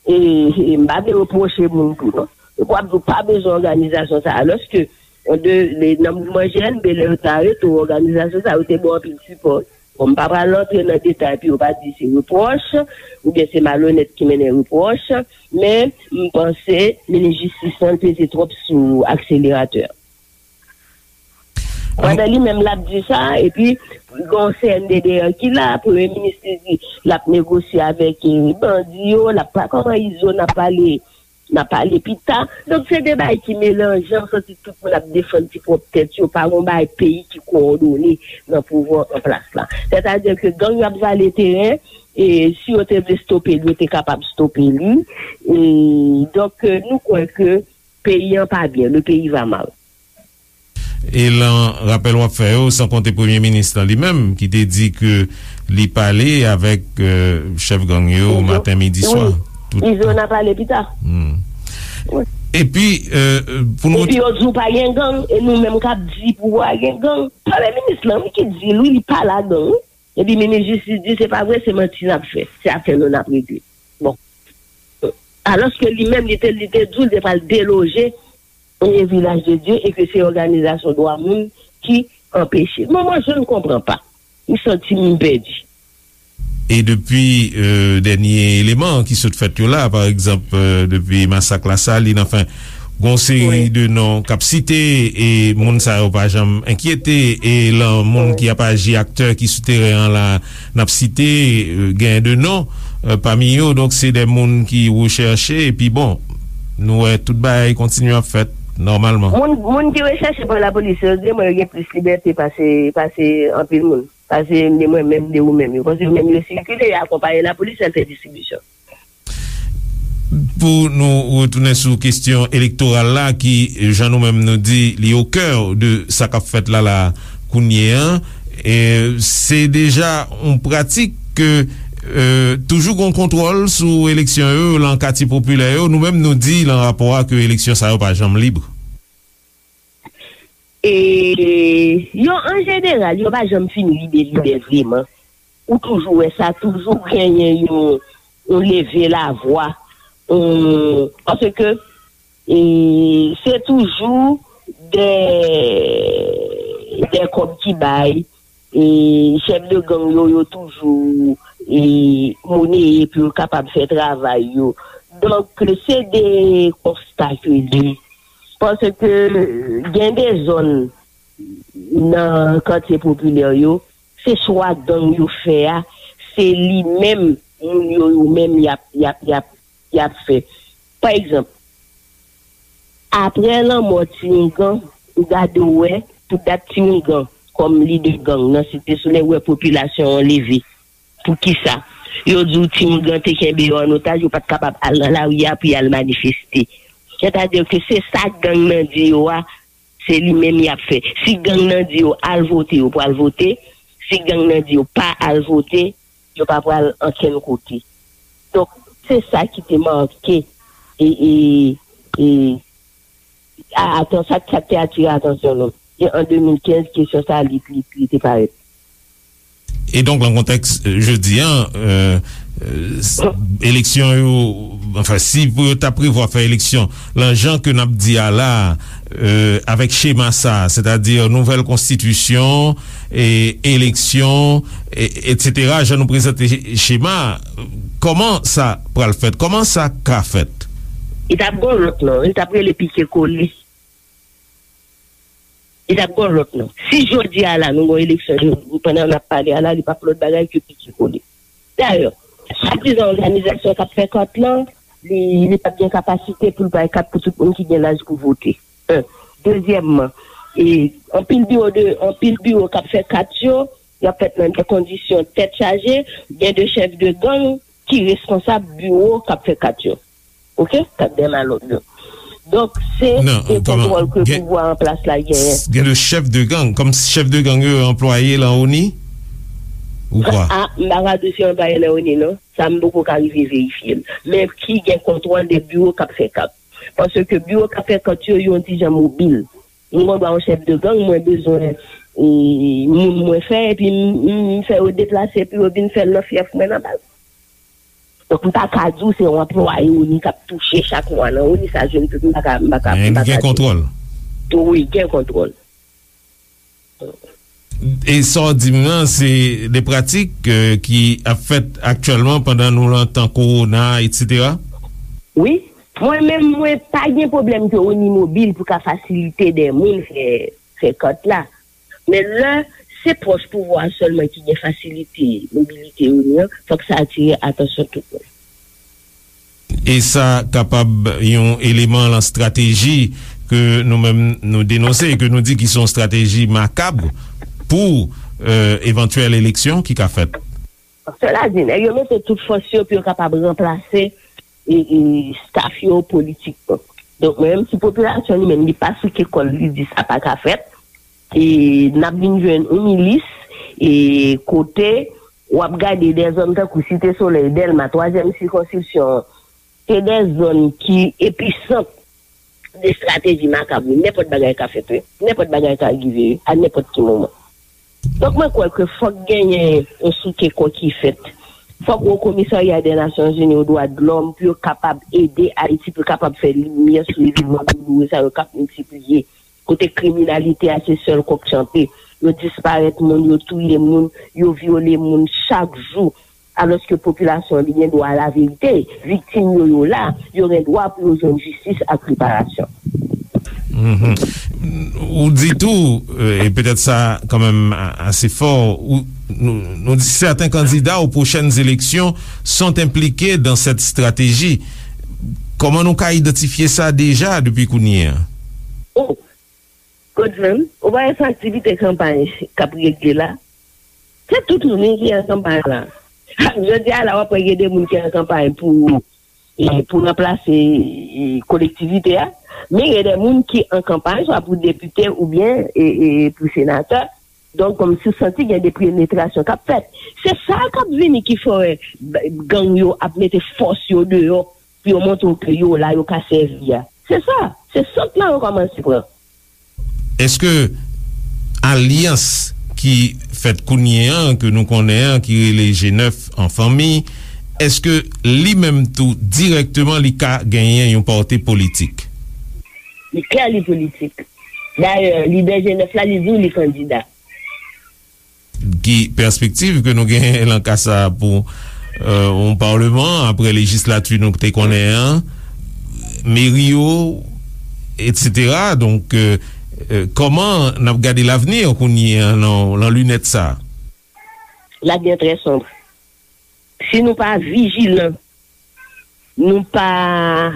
e, e m pa vle repwoche moun tou, non. Epi w ap di w pa bezwen òganizasyon sa a, alòske, an de, le, nan mouvman G N B, lè yo te arete w, òganizasyon sa yo te ba w anpil sipò. Bon, m pa pral rantre nan detay pou yo pa di se repwòch, oubyen se malonèt ki mennen repwòch, men m panse minis jistis lan peze twòp sou akseleratè a. Pandan li menm l ap di sa, epi gen yon C N D D ki la, premye minis li di l ap negosye avèk, eh, bandi yo, l ap pa, kòman Izo n ap pale, n a pale pita. Donk, se de bagay ki melanje, m santi tout moun ap defann ti pwòp tèt yo, pa gon bagay peyi ki kowòdone nan pouvwa an plas la. Sètadi ke gang yo ap vale teren, e si yo te vle stope l, yo te kapab stope li. E, donk, nou kwè ke peyi an pa byen, le pays va mal. E lan rapèl w ap fè yo, san konte premye minis lan li menm, ki te di ke li pale avèk, euh, chèf gang yo maten, midi, swa. Wi, Izo n a pale pita. Hmm. Epi, euh, pou nou... Epi yo di w pa gen gang, e nou menm k ap di pou pa gen gang. Premye minis lan, wi, ki di l, wi, li pa ladan, wi. Epi minis jistis di se pa vre, se manti n ap fè. Se afè nou n ap regle. Bon. Alòske li menm, li te, li te di w li te pral deloje e Vilaj de Dye e ke se òganizasyon dwa moun ki anpeche. Mwen, mwen, je ne comprends pas. M santi m pèdi. E depi, euh, dènye eleman ki sot fèt yo la, pa egzanp, euh, depi masak Lasalin, anfen, gon seri de non k ap site, e moun sa yo pa janm enkyete, e lan moun ki ap aji, aktè ki sou teren an la, n ap site, euh, gen de non, euh, pami yo, donk se de moun ki rechèche, epi bon, nou wè tout bagay kontinye ap fèt nòmalman. Moun, moun ki rechèche pa lapolis yo, di mwen yo gen plis libète pase, pase anpil moun. Pase de mwen menm, de ou menm. Yo panse yo menm yo sikile, yo akonpaye lapolis, al fè distribisyon. Pou nou retounen sou kesyon elektoral la, ki, jan nou menm nou di, li o kè de sa k ap fèt la, la, kounye an, e se deja yon pratik ke, e, toujou gon kontwòl sou eleksyon yo, lan katye popilè yo. Nou menm nou di lan rapò a ke eleksyon sa yo pa janm lib. E yo, an jeneral, yo pa janm fin lib e libè vreman. Ou toujou wè sa, toujou genyen yon, yon leve lavwa, yon, paske, e, se toujou de, de kòb ki bay, e, chèf de gang yo, yo toujou, e, moneye pou yo kapab fè travay yo. Donk, se de konsta ke li. Paske gen de zòn nan katye popilè yo, se swa gang yo fè a, se li menm, moun yo, yo menm, y ap, y ap, y ap, y ap fè. Pa egzanp, apre lanmò Ti Ougan, ou gade w wè, tout dat Ti Ougan, kòm lidè gang nan Site Solèy, wè popilasyon an leve. Poukisa? Yo di w Ti Ougan te kenbe yo an otaj, yo pa t kapab al nan lari a pou y al manifeste. Sètadi ke se sa gang nan di yo a, se li menm y ap fè. Si gang nan di yo al vote, yo pral vote. Si gang nan di yo pa al vote, yo pa pral ankenn kote. Donk, se sa ki te make, e, e, e, a, atan-, sa, sa te atire atansyon nou. E an de mil kenz, kesyon sa, li, li, li te parèt. E donk, lan kontèks, euh, jodi an, euh, euh, s-, eleksyon yo, anfen, si pou yo ta prevwa fè eleksyon, lan jan ke n ap di a la, euh, avèk chema sa, sètadi nouvèl konstitisyon, e eleksyon, e, etsetera, jan nou prezante chema, kòman sa pral fèt? Kòman sa ka fèt? Li t ap gon lòt non, li t ap rele pike kole. Li t ap gon lòt non. Si jodi a la, nou gon eleksyon, pandan n ap pale a la, li p ap lòt bagay ke pike kole. Dayè, swadizan òganizasyon k ap fè kat lan, li, li p ap gen kapasite pou l bay kat pou tout moun ki gen laj pou vote. En. Dezyèmman, e, anpil biwo de, anpil biwo k ap fè kat yo, y ap fèt nan de kondisyon tèt chaje, gen de chèf de gang ki responsab biwo k ap fè kat yo. Oke? Kat dè malòt yo. Donk, se de kontwòl ke pouvwa an plas la genyen. Gen de chèf de gang, kòm chèf de gang yo anplwaye lan ONI? Ou kwa? A, m pa ka di w si yo anplwaye lan ONI, non. Sa, m poko ka rive verifye l. Men ki gen kontwòl de biwo k ap fè kat. Paske biwo k ap fè kat yo, yo yon ti jan mobil. M gon dwa yon chèf de gang, mwen bezwen, e, moun mwen fè, epi m, m, m fè yo deplase pou yo vin fè l nan fyèf mwen nan baz. Donk, m pa ka di w se yon anplwaye ONI k ap touche chak mwa nan ONI, sa je ne peux, m pa ka, m pa ka, m pa ka di. Men li gen kontwòl. Wi, gen kontwòl. E sa w di m nan, se de pratik, euh, ki ap fèt aktyèlman pandan nou lan tan kowona, etsetera? Wi. Mwen menm, mwen pa gen pwoblèm ke ONI mobil pou ka fasilite de moun fè, fè kat la. Men lè se pwòch pouvwa a sèlman ki gen fasilite mobilite ONI an, fòk sa atire atansyon tout moun. E sa kapab yon eleman lan estrateji ke nou menm nou denonse e ke nou di ki se yon estrateji makab pou, euh, evantyèl eleksyon ki ka fèt. Sela di, nèg yo mete tout fòs yo pou yo kapab ranplase e, e staff yo politikman. Donk, menm si popilasyon li menm, li pa souke kò l, li di sa pa ka fèt, e n ap vin jwenn yon milis, e kote w ap gade de zòn tankou Site Solèy, Dèlma, twazyèm sikonskripsyon, se de zòn ki episant de estrateji makab, wi. Nenpòt bagay ka fèt, wi. Nenpòt bagay ka rive, wi, a nenpòt ki moman. Donk, mwen kwè ke fòk genyen yon souke kò ki fèt. Fòk Wo Komisarya de Nasyonzini o Dwa de Lòm pou yo kapab ede Ayiti, pou yo kapab fè limyè sou evènman douloure sa yo k ap miltipliye. Kote kriminalite a se sèl kòk chante. Yo disparèt moun, yo touye moun, yo vyole moun chak jou. Alòske popilasyon an li gen dwa a laverite, viktim yo, yo la, yo gen dwa pou yo jwenn jistis ak reparasyon. Mhm. Ou di tou, euh, e petèt sa kanmenm a- ase fò, ou, nou, nou di certains candidats aux prochaines élections sont impliqués dans cette stratégie. Kòman nou ka idantifye sa deja depi kounye a? Oh, Godson, ou pa wè se aktivite kanpay k ap regle la? Se tout moun wi ki an kanpay la. Jodi a la, w ap wè gen de moun ki an kanpay pou, e, pou ranplase, e, kolektivite a. Men gen de moun ki an kanpay, swa pou depite oubyen, e, e, pou senatè. Donk, kòmsi w santi gen de penetrasyon k ap fèt. Se sa k ap vini ki fè w wè b- gang yo ap mete fòs yo deyò pou yo montre w ke yo la, yo ka sèvi a. Se sa. Se sant lan yo kòmanse pran. Èske alyans ki fèt kounye an, ke nou konnen an, ki rele G nèf an fanmi, èske li menm tou dirèkteman li ka genyen yon pòte politik? Li klè li politik. Dayè, lidè G nèf la, li di w li kandida. Ki pèspektiv ke nou genyen lan ka sa a pou, euh, yon palman apre lejislati nou te konnen an, meri yo, etsetera? Donk, euh, euh, kòman n ap gade lavni an kounye an lan, lan linèt sa a? L'avenir est très sombre. Si nou pa vijilan, nou pa,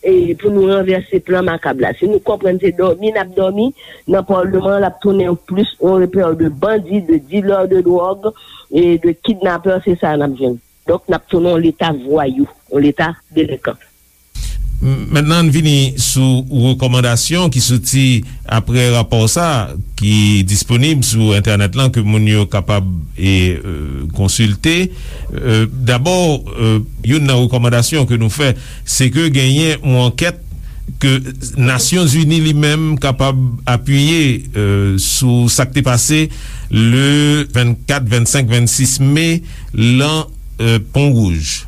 e, pou nou ranvèse plan makab la. Si nou konprann se dòmi n ap dòmi, nan palman an, l ap tounen yon plis yon repè de bandi, de dilè de dwòg, e de kidnapè, se sa n ap jwenn. Donk, n ap tounen yon leta vwayou, yon leta delenkan. M- mentnan, ann vini sou rekòmandasyon ki soti apre rapò sa a, ki disponib sou entènèt lan, ke moun yo kapab, e, e, konsilte. E, dabò, e, youn nan rekòmandasyon ke nou fè, se ke genyen yon ankèt ke Nasyonzini li menm kapab apiye, e, sou sa k te pase le vennkat, vennsenk, vennsis me lan, e, Pon Wouj.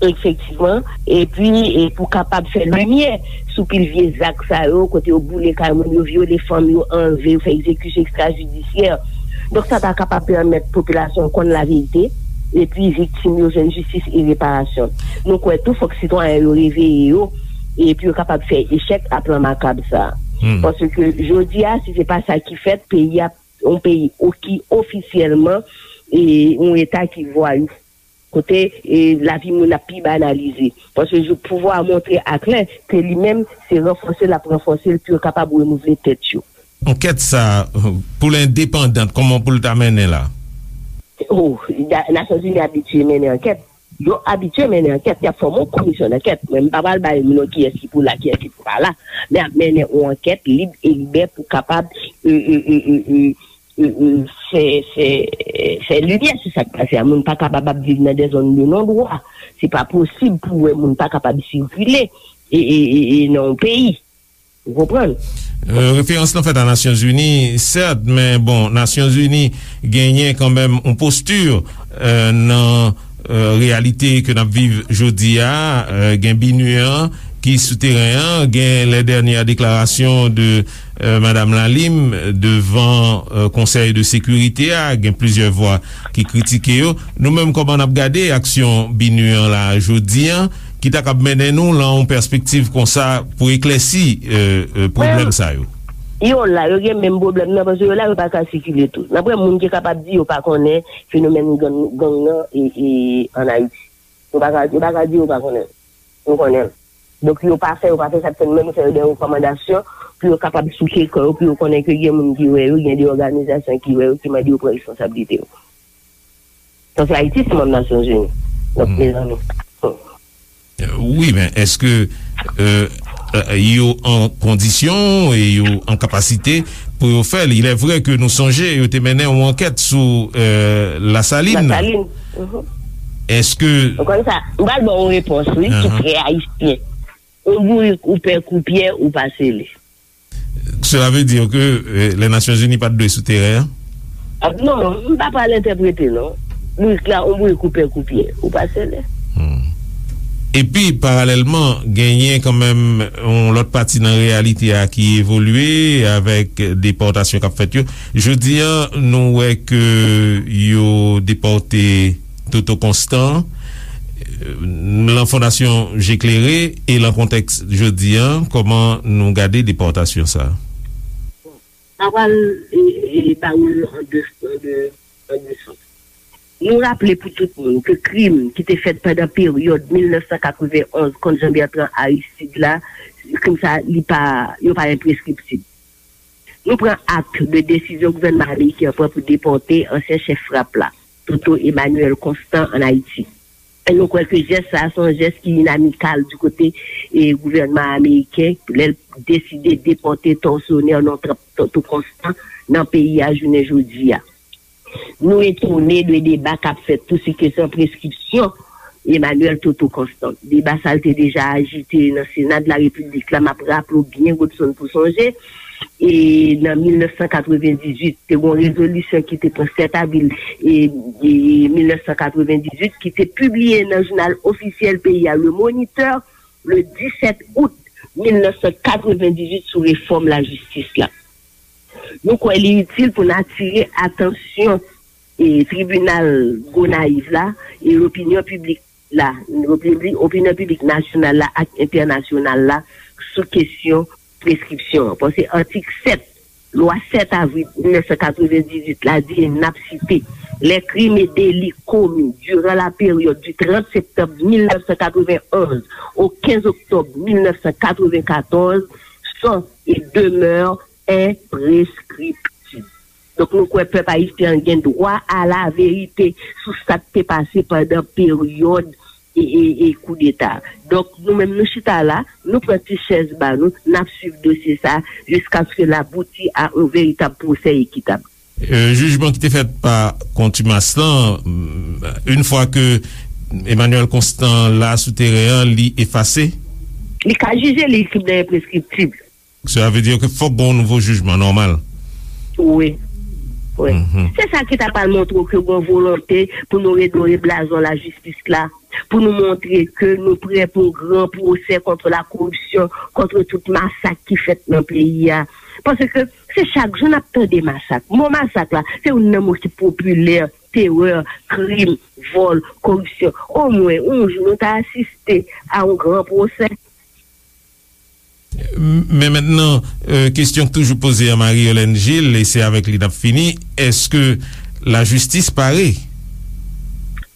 Efektivman. Epi, e pou kapab fè limyè sou pil vye zak sa yo, kote yo boule kay moun, yo vyole fanm, yo anlve, yo fè egzekisyon ekstrajidisyè. Donk, sa ta kapab pèmèt popilasyon konn laverite, epi viktim yo jwenn jistis e reparasyon. Nou kwè tou, fòk sitwayen yo reveye yo, epi yo kapab fè echèk a plan makab sa a. Hmm. Paske jodi a, si se pa sa ki fèt, peyi a, yon peyi o- ki ofisyèlman, e, yon eta ki vwayou. Kote, e, lavi moun ap pi banalize. Paske jou pouvwa a montre aklè ke li menm, se ranfòse l ap ranfòse l pou yo kapab renouvle tèt yo. Ankèt sa a, pou l endepandan, kòman pou l ta mennen la? Oh, da- Nasyonzini abitye mennen ankèt. Yo abitye mennen ankèt. Y ap fòme yon komisyon dankèt. Mwen, m pa pral bay non kiyès ki pou la, kiyès ki pou pa la. Men ap mennen yon ankèt lib e libè pou kapab, e, e, e, e, e, e, e, fè, fè, fè limyè sou sa k pase a. Moun pa kapab ap viv nan de zòn de non dwa. Se pa posib pou w wè moun pa kapab sikile e, e, e, e nan yon peyi. Ou konprann? Euh, referans lan fèt a Nasyonzini, sèt, men bon, Nasyonzini genyen kanmenm yon posti, euh, nan, euh, reyalite ke n ap viv jodi a, euh, gen BINUH an ki sou teren an, gen les dernières déclarations de, euh, Madame Lalim devan, euh, Konsèy de Sekirite a, gen plizyè vwa ki kritike yo. Nou menm, kòman n ap gade aksyon BINUH an la jodi a, ki ta kab mennen nou lan yon pèspektiv konsa pou eklèsi, euh, euh, pwoblèm sa yo? Yo la, yo gen menm pwoblèm nan, paske yo la, yo pa ka sikile tou. N ap wè moun ki kapab di yo pa konnen fenomèn gang, gang nan e, e, ann Ayiti. Yo pa ka, yo pa ka di yo pa konnen. Nou konnen l. Donk, yo pa fè, yo pa fè sa, se menm fè yo de rekòmandasyon pou yo kapab souke kò yo, pou yo konnen ke gen moun ki wè yo, gen de òganizasyon ki wè yo, ki mande yo pran responsablite yo. Paske Ayiti se manm Nasyonzini. Donk, mezanmi. Wi, men èske euh, euh, yo an kondisyon e yo an kapasite pou yo fè l? Il est vrai que nou sonje yo te mennen yon ankèt sou euh, Lasalin. Lasalin. Èske. Ou konn sa, m pral ba w yon repons, wi, ki trè ayisyen. Yon bourik ou pè kou pyè, ou pa sele. Cela veut dire que euh, les Nations Unies pa t dwe sou teren an? Ah, non, m pa pral entèprete, non. Bourik la, yon bourik ou pè kou pyè, ou pa sele. Epi, paralèlman, genyen kanmenm yon lòt pati nan reyalite a ki evolye avèk depòtasyon k ap fèt yo. Jodi a, nou wè ke yo depòte Toto Constant, lan Fondasyon Je Klere e lan kontèks jodi a, kòman nou gade depòtasyon sa a? Sa pral e, e, e ba ou an de, an de, an de sans. Nou raple pou tout moun ke krim ki te fèt pandan peryòd mil nèf san katrevenn onz kont Jean Bertrand Aristide la, krim sa, li pa, yo pa enpreskriptib. Nou pran ak de desizyon gouvènman ameriken an pran pou depòte ansyen chèf frap la, Toto Emmanuel Constant, ann Ayiti. E nou kwè ke jès sa a se yon jès ki inamikal di kote e gouvènman ameriken lè l deside depòte tòsyonè non Toto Constant nan peyi a jounen jodi a. Nou etone de deba k ap fèt tou sou kesyon preskripsyon Emmanuel Toto Constant. Deba sa a te deja ajite nan Sena de la Repiblik la, m ap raple w byen, Godson, pou sonje, e nan mil nèf san katrevendizuit, te gen yon rezolisyon ki te pran sèt avril e, e mil nèf san katrevendizuit, ki te pibliye nan jounal ofisyèl peyi a, Le Moniteur, le disèt out mil nèf san katrevendizuit sou refòm lajistis la. Nou kwè li itil pou n atire atansyon e tribinal Gonayiv la e lopinyon piblik la, opinyon piblik nasyonal la ak entènasyonal la sou kesyon preskripsyon an. Paske atik sèt lwa sèt avril mil nèf san katrevendizuit la di, e n ap site, les crimes et délits commis durant la période du trente septembre mille neuf cent quatre-vingt-onze au quinze octobre mille neuf cent quatre-vingt-quatorze sont et demeurent imprescriptibles. Donk, nou kwè pèp ayisyen an gen dwa a la verite sou sa k te pase pandan peryòd e, e, e koudeta. Donk, nou menm, nou chita la, nou pran ti chèz ba nou, n ap swiv dosye sa a jiskaske l abouti a yon veritab pwosè ekitab. Euh, jijman ki te fèt pa kontimas lan, yon fwa ke Emmanuel Constant la sou teren an, li efase? Li ka jije, li tribinal enpreskriptib. Cela veut dire que fòk gen yon nouvo jijman nòmal. Wi. Wi. Se sa ki ta pral montre w ke gen volonte pou nou redore blazon lajistis la, pou nou montre ke nou prè pou yon gran pwosè kont la koripsyon, kont tout masak ki fèt nan peyi a. Paske se chak jou n ap tande masak. Mo masak la, se youn nan mo ki popilè, terè, krim, vòl, koripsyon. Omwen, yon jou, nou ta asiste a yon gran pwosè. Men mentnan, euh, kesyon k toujou poze a Marie Yolène Gilles, e se avèk li n ap fini, èske lajistis pare?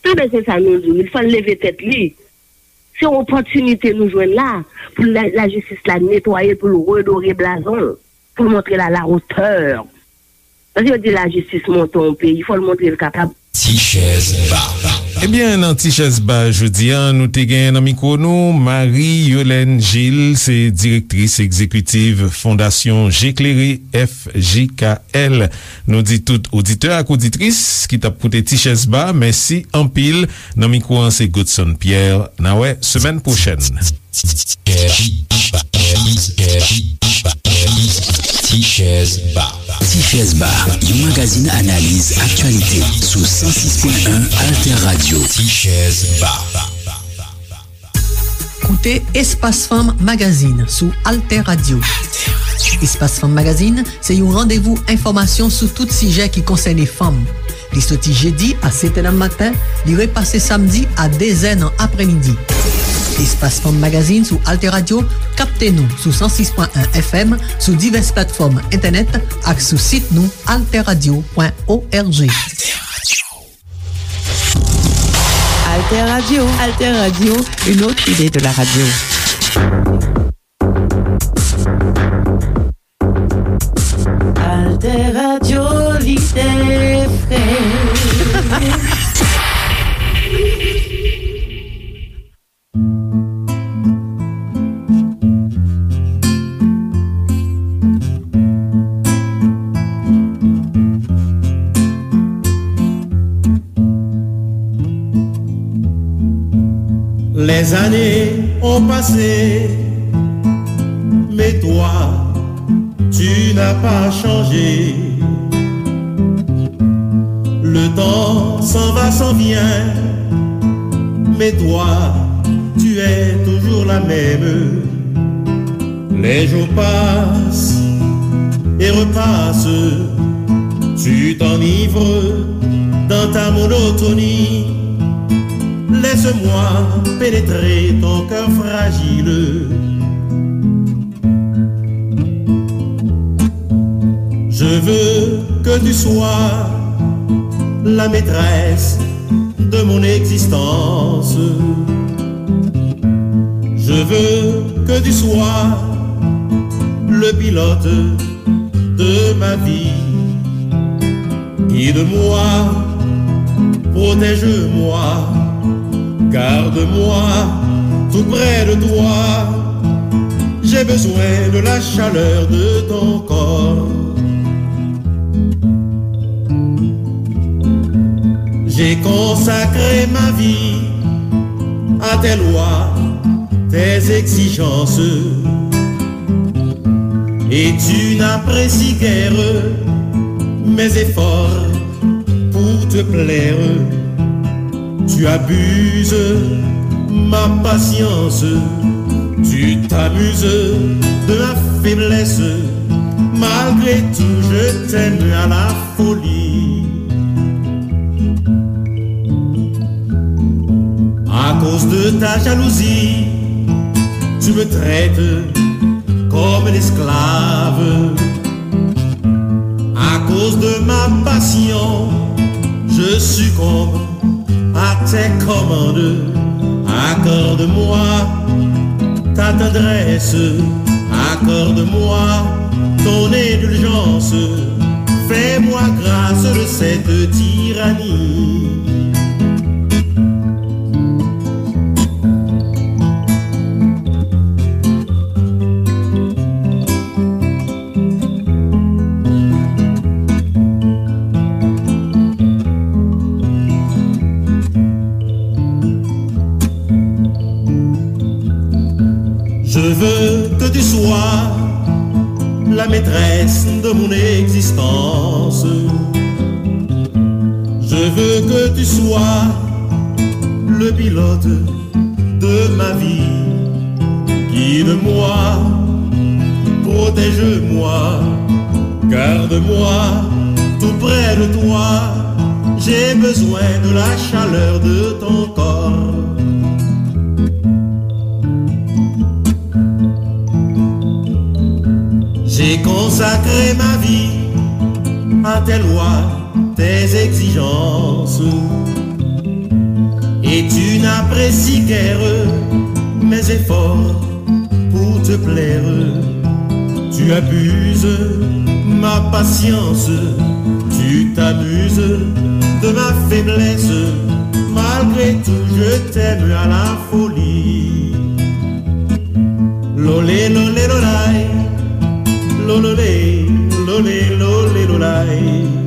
Enben, se sa nou di w, li fò l leve tèt li. Se yon opòtinite nou jwenn la pou la, lajistis la netwaye l, pou l redore blazon l, pou l montre l a la otè. Paske yo di lajistis monte yon peyi, fò l montre l kapab. Ti chèz ba. Ebyen, nan Ti chèz ba jodi a, nou te gen nan mikwo nou Marie Yolène Gilles, se direktris egzekitiv Fondasyon Je Klere, F J K L. Nou di tout oditè ak oditris ki t ap koute Ti chèz ba, mèsi anpil. Nan mikwo an, se Godson Pierre. N a wè semèn pwochèn. Ti chèz ba. Ti chèz ba, yon magazin analiz aktyalite sou san sis pwen en Alter Radio. Ti chèz ba. Koute Espas Fanm Magazine sou Alter Radio. Espas Fanm Magazine se yon randevou enfòmasyon sou tout sijè ki konsène fanm. Li soti jedi a sèt è nan maten, li repase samdi a de zè nan aprèmidi. Espas Fanm Magazine sou Alter Radio, kapte nou sou san sis pwen en F M, sou divès platfòm entènèt ak sou sit nou alter radio pwen org. Alter Radio. Alter Radio, une autre idée de la radio. Alter Radio, lide fre. Les années ont passé, mais toi, tu n'as pas changé. Le temps s'en va, s'en vient, mais toi, tu es toujours la même. Les jours passent et repassent, tu t'enivres dans ta monotonie. Laisse-moi pénétrer ton cœur fragile. Je veux que tu sois la maîtresse de mon existence. Je veux que tu sois le pilote de ma vie. Guide-moi, protège-moi, garde-moi tout près de toi. J'ai besoin de la chaleur de ton corps. J'ai consacré ma vie à tes lois, tes exigences. Et tu n'apprécies guère mes efforts pour te plaire. Tu abuses ma patience, tu t'amuses de ma faiblesse. Malgré tout, je t'aime à la folie. À cause de ta jalousie, tu me traites comme un esclave. À cause de ma passion, je succombe à tes commandes. Accorde-moi ta tendresse, accorde-moi ton indulgence. Fais-moi grâce de cette tyrannie. Je veux que tu sois la maîtresse de mon existence. Je veux que tu sois le pilote de ma vie. Guide-moi, protège-moi, garde-moi tout près de toi. J'ai besoin de la chaleur de ton corps. J'ai consacré ma vie à tes lois, tes exigences. Et tu n'apprécies guère mes efforts pour te plaire. Tu abuses ma patience, tu t'amuses de ma faiblesse. Malgré tout, je t'aime à la folie. Lolé, lolé, lolay. Lololé, lolé, lolé, lolay.